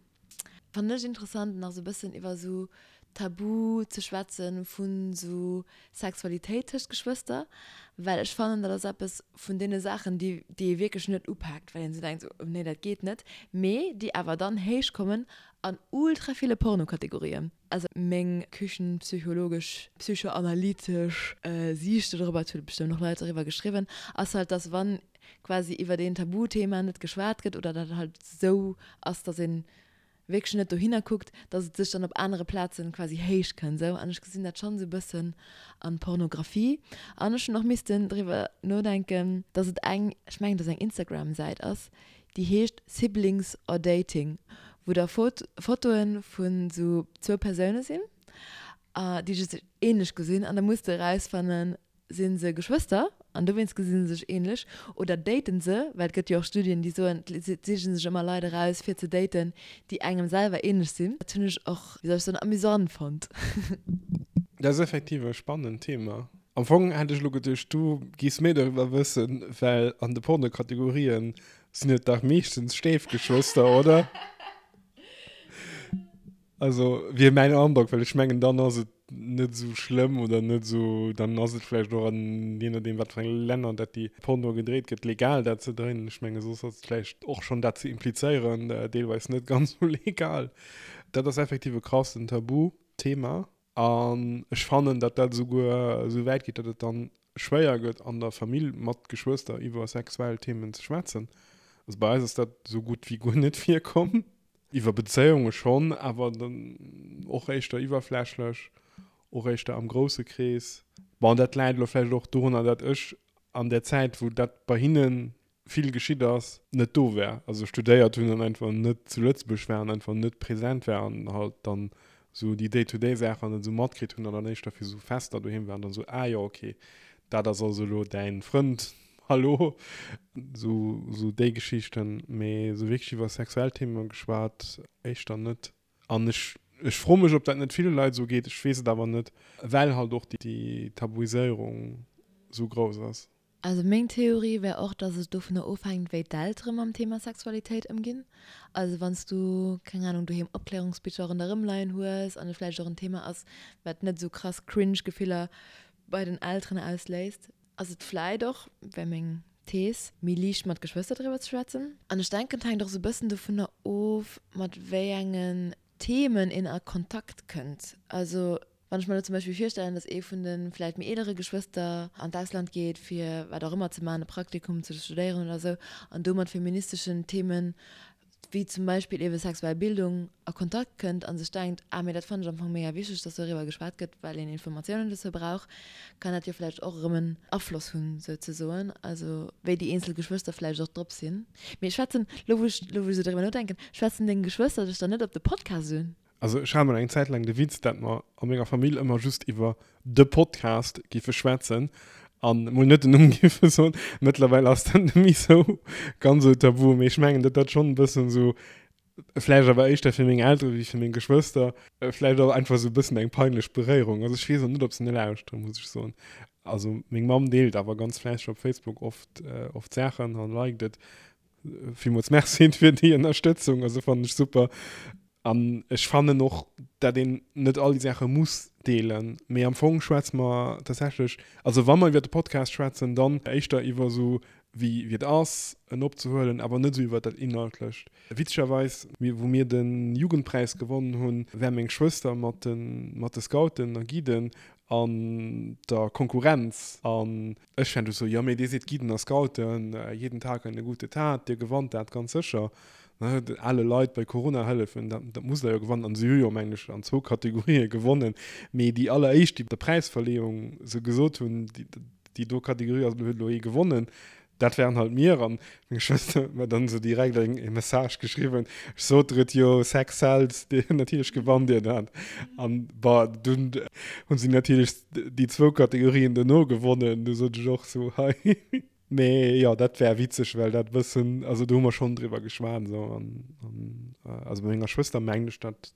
fannen ech interessant, nach sou bëssen iwwer sou Tabu ze schwätzen vun sou Sexualitéit tëscht Geschwëster, well ech fannen, dat ass eppes vun deene Saachen, déi déi ee wierklech net upaakt, well een sou denkt, sou, nee, dat geet net, mee déi awer dann héich kommen an ultra ville Pornokategorien. Also meng küchenpsychologesch, psychoanalytesch Siicht dodrobber, et hu bestëmmt och Leit doriwwer geschriwwen, ass halt, dass wann quasi iwwert een Tabuthema net geschwat gëtt oder dat halt sou ass, dass een wierklech net dohinner kuckt, dass et sech dann op anere Plazen quasi héich kënnt sou. An ech gesinn dat schonn sou bëssen an Pornografie. An ech hunn och missten driwwer nodenken, dass et eng, ech mengen dass eng Instagram-Säit ass, déi heescht Siblings or Dating, wou da Fotoe vun sou zwou Persoune sinn, déi sech ähnlech gesinn an da muss de erausfannen, si se Geschwëster an dowéinst gesi se sech ähnlech oder daten se, well et gëtt jo och Studien, déi soen, et siche sech ëmmer Leit eraus fir ze daten, déi engem selwer ähnlech sinn. Dat hunn ech och, wéi soll ech soen, amüsant fonnt. Dat ass effektiv e spannend Thema. Am Fong hätt ech elo geduecht, du giffs méi doriwwer wëssen, well an de Pornokategorien sinn et dach meeschtens Stéifgeschwëster, oder? Also wier mäin Androck, well ech mengen, dann ass et net esou schlëmm oder net esou, dann ass et vläicht och an, jee nodeem wat fir enge Länner dat déi Porno gedréit gëtt, legal dat ze dréinen. Ech menge soss ass et vläicht och schonn dat ze implizéieren deelweis net ganz esou legal. Dat ass effektiv e krassen Tabuthema. An ech fannen, datt dat esouguer esou wäit geet, datt et dann schwéier gëtt, an der Famill mat Geschwëster iwwer sexuell Themen ze schwätzen. Also bei eis ass dat esou gutt wéi guer net virkomm. Iwwer Bezéiunge schonn, awer dann och éischter iwwerflächlech, och éischter am grousse Krees. Bon, dat läit elo vläicht och dorunner, datt ech an där Zäit, wou dat bei hinne vill geschitt ass, net do war, also studéiert hunn an einfach net zu Lëtzebuerg war an einfach net präsent war an halt dann sou déi Day-to-day-Saachen net sou matkritt hunn an dann éischter fir sou Fester doheem war an dann sou, ah jo, okay, dat ass also elo däin Frënd, hallo, sou, sou déi Geschichten, mee sou wierklech iwwer sexuell Themen geschwat éischter net. An ech, ech froe mech, ob dat net ville Leit esou geet, ech weess et awer net, well halt och déi Tabuiséierung sou grouss ass. Also meng Theorie wär och, dass et dovunner ofhänkt, wéi d'Eltere mam Thema Sexualitéit ëmginn. Also wann s du, keng Ahnung, doheem Opklärungsbicher ronderëm leien hues an et vläicht och en Thema ass, wat net esou krass cringe Gefiller bei den Elteren ausléist, ass et vläit och, wär meng Thees, méi liicht mat Geschwëster driwwer ze schwätzen. An ech denken, et hänkt och esou e bëssen dovunner of, mat wéi engen Themen een a Kontakt kënnt. Also Wann ech mer elo zum Beispill virstellen, dass ee vun de vläicht méi eelere Geschwëster an d'Ausland geet, fir wat och ëmmer ze maachen, e Praktikum ze studéieren oder esou, an do mat feministeschen Themen, wéi zum Beispill eebe sexuell Bildung, a Kontakt kënnt a sech denkt, ah, mee dat fannen ech am Fong mega wichteg, dass doriwwer geschwat gëtt, well een Informatiounen dozou brauch, kann dat jo vläicht och erëm en Afloss hunn, souzesoen, also wéi déi eenzel Geschwëster vläicht och drop sinn. Mee schwätzen, elo wou ech, elo wou ech esou driwwer nodenken, schwätzen deng Geschwëster dech dann net op de Podcast un? Also ech hat mol eng Zäit laang de Witz, dat mer a menger Famill ëmmer just iwwer de Podcast giffe schwätzen an mol net den Numm giffe soen. Mëttlerweil ass dat net méi sou ganz sou tabu, mee ech mengen, datt dat schonn e bëssen sou, vläicht awer éischter fir meng Eltere wéi fir meng Geschwëster, vläicht och einfach sou e bëssen eng peinlech Beréierung ass. Ech weess och net, ob se net lauschteren, muss ech soen. Also meng Mamm deelt awer ganz fläisseg op Facebook oft, oft Saachen an liked et. Villmools Merci fir déi Ënnerstëtzung, also fannen ech super. An ech fannen och, dat een net all déi Saache muss deelen, mee am Fong schwätze mer tatsächlech, also wa mer iwwer de Podcast schwätzen, dann éischter iwwer esou wéi wéi et ass en opzehuelen, awer net esou iwwer dat Inhaltlecht. Witzegerweis, wou mir de Jugendpräis gewonnen hunn, war meng Schwëster mat de mat de Scouten a Guiden an der Konkurrenz an ech war du sou, jo mee dir sidd Guiden a Scouten, jeden Tag eine gute Tat, dir gewannt dat ganz sécher. Ne, ale Leit bei Corona hëllefen, dat dat musst der jo gewannen. An si hu jo, mengen ech, an zwou Kategorië gewonnen, mee déi alleréischt, déi op der Präisverleeung sou gesot hunn, déi déi do Kategorie ass, huet elo ee gewonnen, dat waren halt mir. An meng Schwëster huet mer dann esou direkt eng e Message geschriwwen, ech sot der et jo, Sex sells, dir, natierlech gewannt dir dat. An bon, dunn hu si natierlech déi zwou Kategorien dono gewonnen, du sot ech och sou, hei. Mee jo, dat war witzeg, well dat e bëssen, also do hu mer schonn driwwer geschwat esou an, an also bei menger Schwëster mengen ech dat,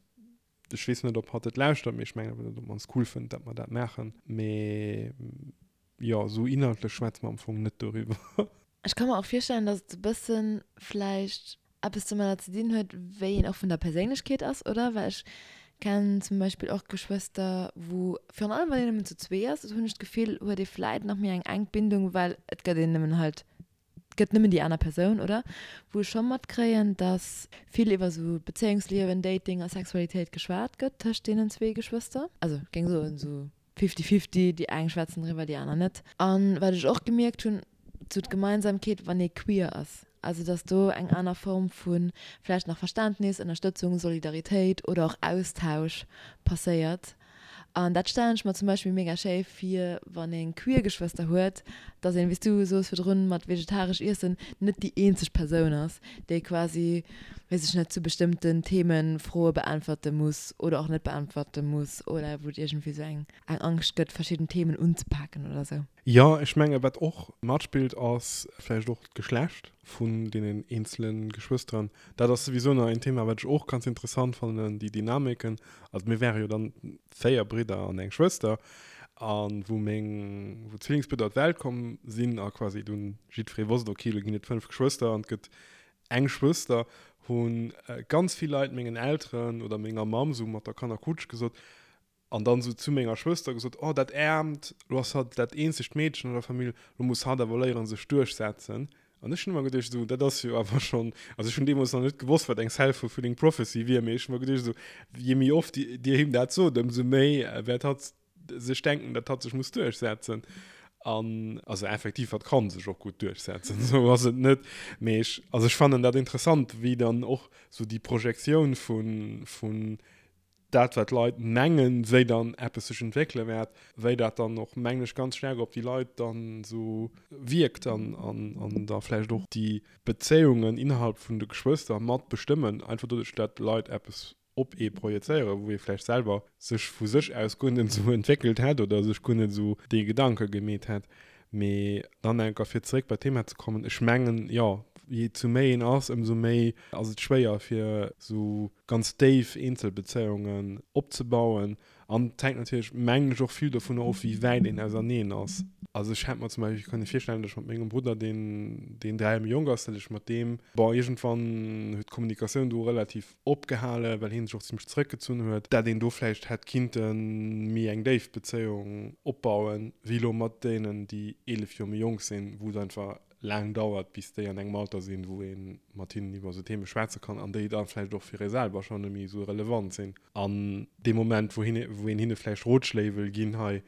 ech weess net ob hatt et lauschtert, mee ech mengen awer, datt et op mannst cool fënnt, datt mer dat maachen. Mee jo, esou inhaltlech schwätze mer am Fong net doriwwer. Ech ka mer och virstellen, datt et e bësse vläicht eppes domadder ze dinn huet, wéi een och vun der Perséinlechkeet ass, oder? Well ech kennen zum Beispill och Geschwëster, wou, virun allem wann een nëmmen zu zwee ass, esou hunn ech d'Gefill, huet ee vläit nach méi eng enk Bindung, well et gëtt een nëmmen halt, et gëtt nëmmen déi aner Persoun, oder? Wou ech scho matkréien, dass vill iwwer esou Bezéiungsliewen, Dating a Sexualitéit geschwat gëtt tëscht deenen zwee Geschwëster. Also ech géing soen, esou Fifty fifty, déi eng schwätzen driwwer, déi aner net. An wat ech och gemierkt hunn, sou d'Gemeinsamkeet, wann ee queer ass, also dass do eng aner Form vu vläicht nach Verständnis, Ënnerstëtzung, Solidaritéit oder och Austausch passéiert. An dat stellen ech mer zum Beispill mega schéi vir, wann ee queer Geschwëster huet, dass een, wéi s du soos virdrun mat vegetaresch iessen, net déi eenzeg Persoun ass, déi quasi, weess ech net, zu bestëmmten Themen Froe beäntwerte muss oder och net beäntwerte muss oder wou et iergendwéi sou eng eng Angscht gëtt, verschidden Themen unzepaken oder sou. Jo, ech menge wat och matspillt ass vläicht och d'Geschlecht vun deenen eenzele Geschwësteren. Dat ass souwisou nach een Thema, wat ech och ganz interessant fannen, déi Dynamiken. Also mir wäre jo dann 4 Bridder an eng Schwëster a wou meng, wou d'Zwillingsbridder op d'Welt komm sinn a quasi dunn jiddweree wosst, okay, elo ginn et 5 Geschwëster an et gëtt eng Schwëster, hu ganz vill Leit mengen Elteren oder menger Mamm sou mat der Kannerkutsch gesot an dann sou zu menger Schwëster gesot, oh dat Äermt, lo ass hatt dat eenzegt Meedchen an der Famill, lo muss hatt awer léieren sech duerchsetzen. An ech hunn ëmmer geduecht, esou, dat ass jo awer schonn, also ech hunn deemools nach net gewosst, wat eng self-fulfilling prophecy wier, mee ech hu mer geduecht, esou, je méi oft Dir him dat sot, ëmsou méi wäert hatt sech denken, datt hatt sech muss duerchsetzen. An also effektiv, hatt ka sech och gutt duerchsetzen, esou ass et net. Mee ech, also ech fannen dat interessant, wéi dann och esou déi Projektioun vu, vun dat wat d'Leit mengen, wéi dann eppes sech entwéckele wäert, wéi dat dann och, mengen ech, ganz staark op déi Leit dann esou wierkt an an da vläicht och déi Bezéiungen innerhalb vun de Geschwëster mat bestëmmen, einfach doduerch, dat d'Leit eppes op ee projezéieren, wou ee vläicht selwer sech vu sech aus guer net esou entwéckelt hätt oder sech guer net esou dee Gedanke gemeet hätt. Mee dann enker fir zeréck bei d'Thema ze kommen, ech mengen, jo, je zu méi een ass, ëmsou méi ass et schwéier fir esou ganz déif Eenzelbezéiungen opzebauen. An et hänkt natierlech, mengen ech, och vill dovunner of, wéi wäit een auserneen ass. Also ech hätt mer zum Beispill kënne virstellen, datt ech mat mengem Brudder, deen, deen 3 Joer méi jonk ass, datt ech mat deem, bon, iergendwann huet d'Kommunikatioun do relativ opgehale well hien sech och zimmlech zeréckgezunn huet, dat een do vläicht hätt kinnte méi eng déif Bezéiung opbauen, wéi elo mat deenen, déi 11 Joer méi jonk sinn, wou et einfach laang dauert, bis déi an engem Alter sinn, wou ee mat hinnen iwwer esou Theme schwätze kann an déi da vläicht och fir ee selwer schonn net méi esou relevant sinn. An dee Moment, wou een hinne vläicht Rotschléi wëll ginn, hei,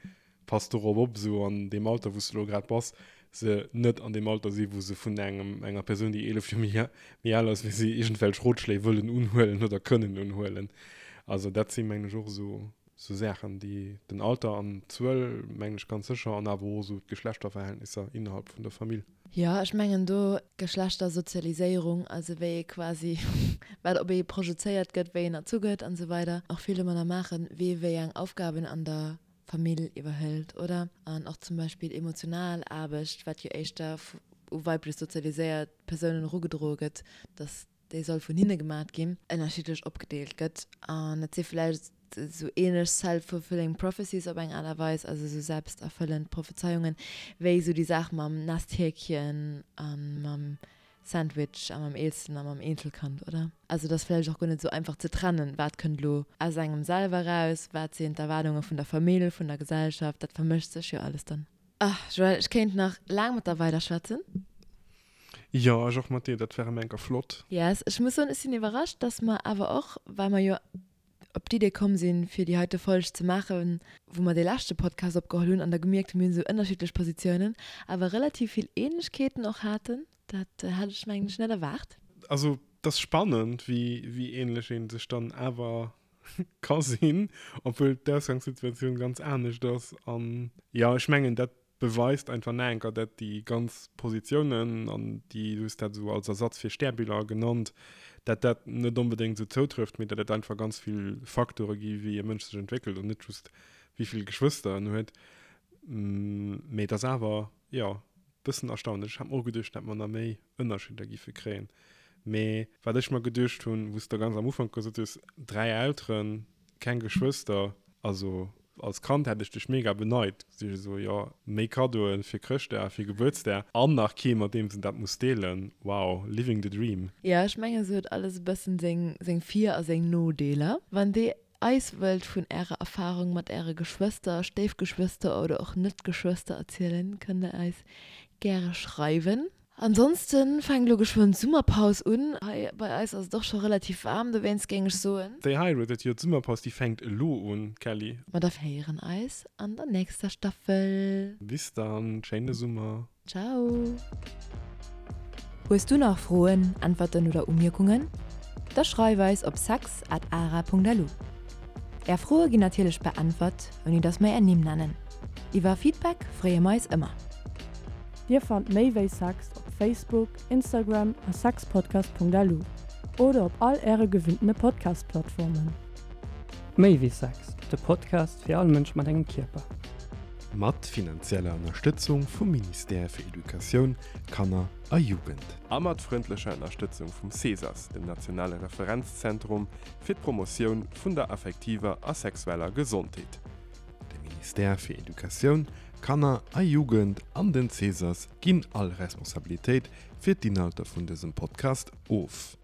Pass dorop op, esou an deem Alter, wou s de elo grad bass, se net an deem Alter si wou se vun engem, enger Persoun, déi 11 Joer méi, méi al ass wéi si, iergendwelch Rotschléi wëllen unhuelen oder kënnen unhuelen. Also dat si mengen ech och esou, esou Saachen, déi den Alter an d'Zuel, mengen ech ganz sécher, an awer och esou d'Geschlechterverhältnisser innerhalb vun der Famill. Jo, ech mengen do Geschlechtersozialiséierung, also wéi ee quasi, wat op ee projezéiert gëtt, wéi een erzu gëtt an esou weider, och vill domadder maachen, wee wéi eng Aufgaben an der Famill iwwerhëlt, oder? An och zum Beispill emotional Aarbecht, wat jo éischter u weiblech sozialiséiert Persounen erugedroe gëtt, dass déi soll vun hinne gemat ginn, ënnerschiddlech opgedeelt gëtt. An et si vläicht esou ähnlech self-fulfilling prophecies op eng Aart a Weis, also esou selbsterfëllend Prophezeiungen, wéi esou déi Saach mam Nesthäkchen a mam. Sandwich a mam Eelsten a mam Eenzelkand, oder? Also et ass vläicht och guer net esou einfach ze trennen, wat kënnt elo aus engem selwer eraus, wat sinn d'Erwaardunge vun der Famill, vun der Gesellschaft, dat vermëscht sech jo alles dann. Ach Joël, ech kéint nach laang mat der weider schwätzen. Jo, ech och mat dir, dat wär erëm enker flott. Yes, ech muss soen, ech sinn iwwerrascht, dass mer awer och, well mer jo op d'Idee komm sinn, fir déi heite Folg ze maachen, wou mer dee leschte Podcast opgeholl hunn an da gemierkt hunn, mir hunn esou ënnerschiddlech Positiounen, awer relativ vill Ähnlechkeeten och haten. Dat hat ech, mengen ech, net erwaart. Also, et ass spannend, wéi, wéi ähnlech ee sech dann awer ka sinn, obwuel d'Ausgangssituatioun ganz anescht ass. An jo, ech mengen, dat beweist einfach nach eng Kéier, dat déi ganz Positiounen, an déi, du hues dat esou als Ersatz fir Stärbiller genannt, dat dat net onbedéngt esou zoutrëfft, mee dat et einfach ganz vill Facteure gi wéi e Mënsch sech entwéckelt an net just wéi vill Geschwëster en huet. Mee et ass awer, jo, bëssen erstaunlech. Ech hat mer och geduecht, dat mer nach méi Ënnerscheeder giffe kréien. Mee wat ech mer geduecht hunn, wou s de ganz am Ufank gesot hues, 3 Elteren, keng Geschwëster, also als Kand hätt ech dech mega beneit, si ech esou, jo, méi Kaddoen fir Chrëschtdag, fir Gebuertsdag an nach kee mat deem s en dat muss deelen, wow, living the dream. Jo, ech mengen se huet alles e bëssen seng seng Vir a seng Nodeeler. Wann dir eis wëllt vun ärer Erfahrung mat äre Geschwëster, Stéifgeschwëster oder och Net-Geschwëster erzielen, kënnt der eis gäre schreiwen. Ansonsten fänkt elo geschwënn d'Summerpaus un. Hei bei eis ass et och scho relativ waarm, dowéinst géing ech soen. Stay hydrated, jo d'Summerpaus déi fänkt elo un, Kelly. Ma da héieren eis an der nächster Staffel. Bis dann, schéine Summer. Ciao. Hues du nach Froen, Äntwerten oder Umierkungen? Da schreif eis op sex at ara.lu. Är Froe ginn natierlech beäntwert, ouni dass mer är Nimm nennen. Iwwer Feedback freeë mer eis ëmmer. Dir fannt méi wéi Sex op Facebook, Instagram a sexpodcast.lu oder op all äre gewinntene Podcast-Plattformen. Méi wéi Sex, de Podcast fir all Mënsch mat engem Kierper. Mat finanzieller Ënnerstëtzung vum Ministère fir Educatioun, Kanner a Jugend. A mat frëndlecher Ënnerstëtzung vum CESAS, dem nationale Referenzzentrum fir d'Promotioun vun der affektiver a sexueller Gesondheet. De Ministère fir Educatioun, Kanner a Jugend an den CESAS ginn all Responsabilitéit fir d'Inhalter vun dësem Podcast of.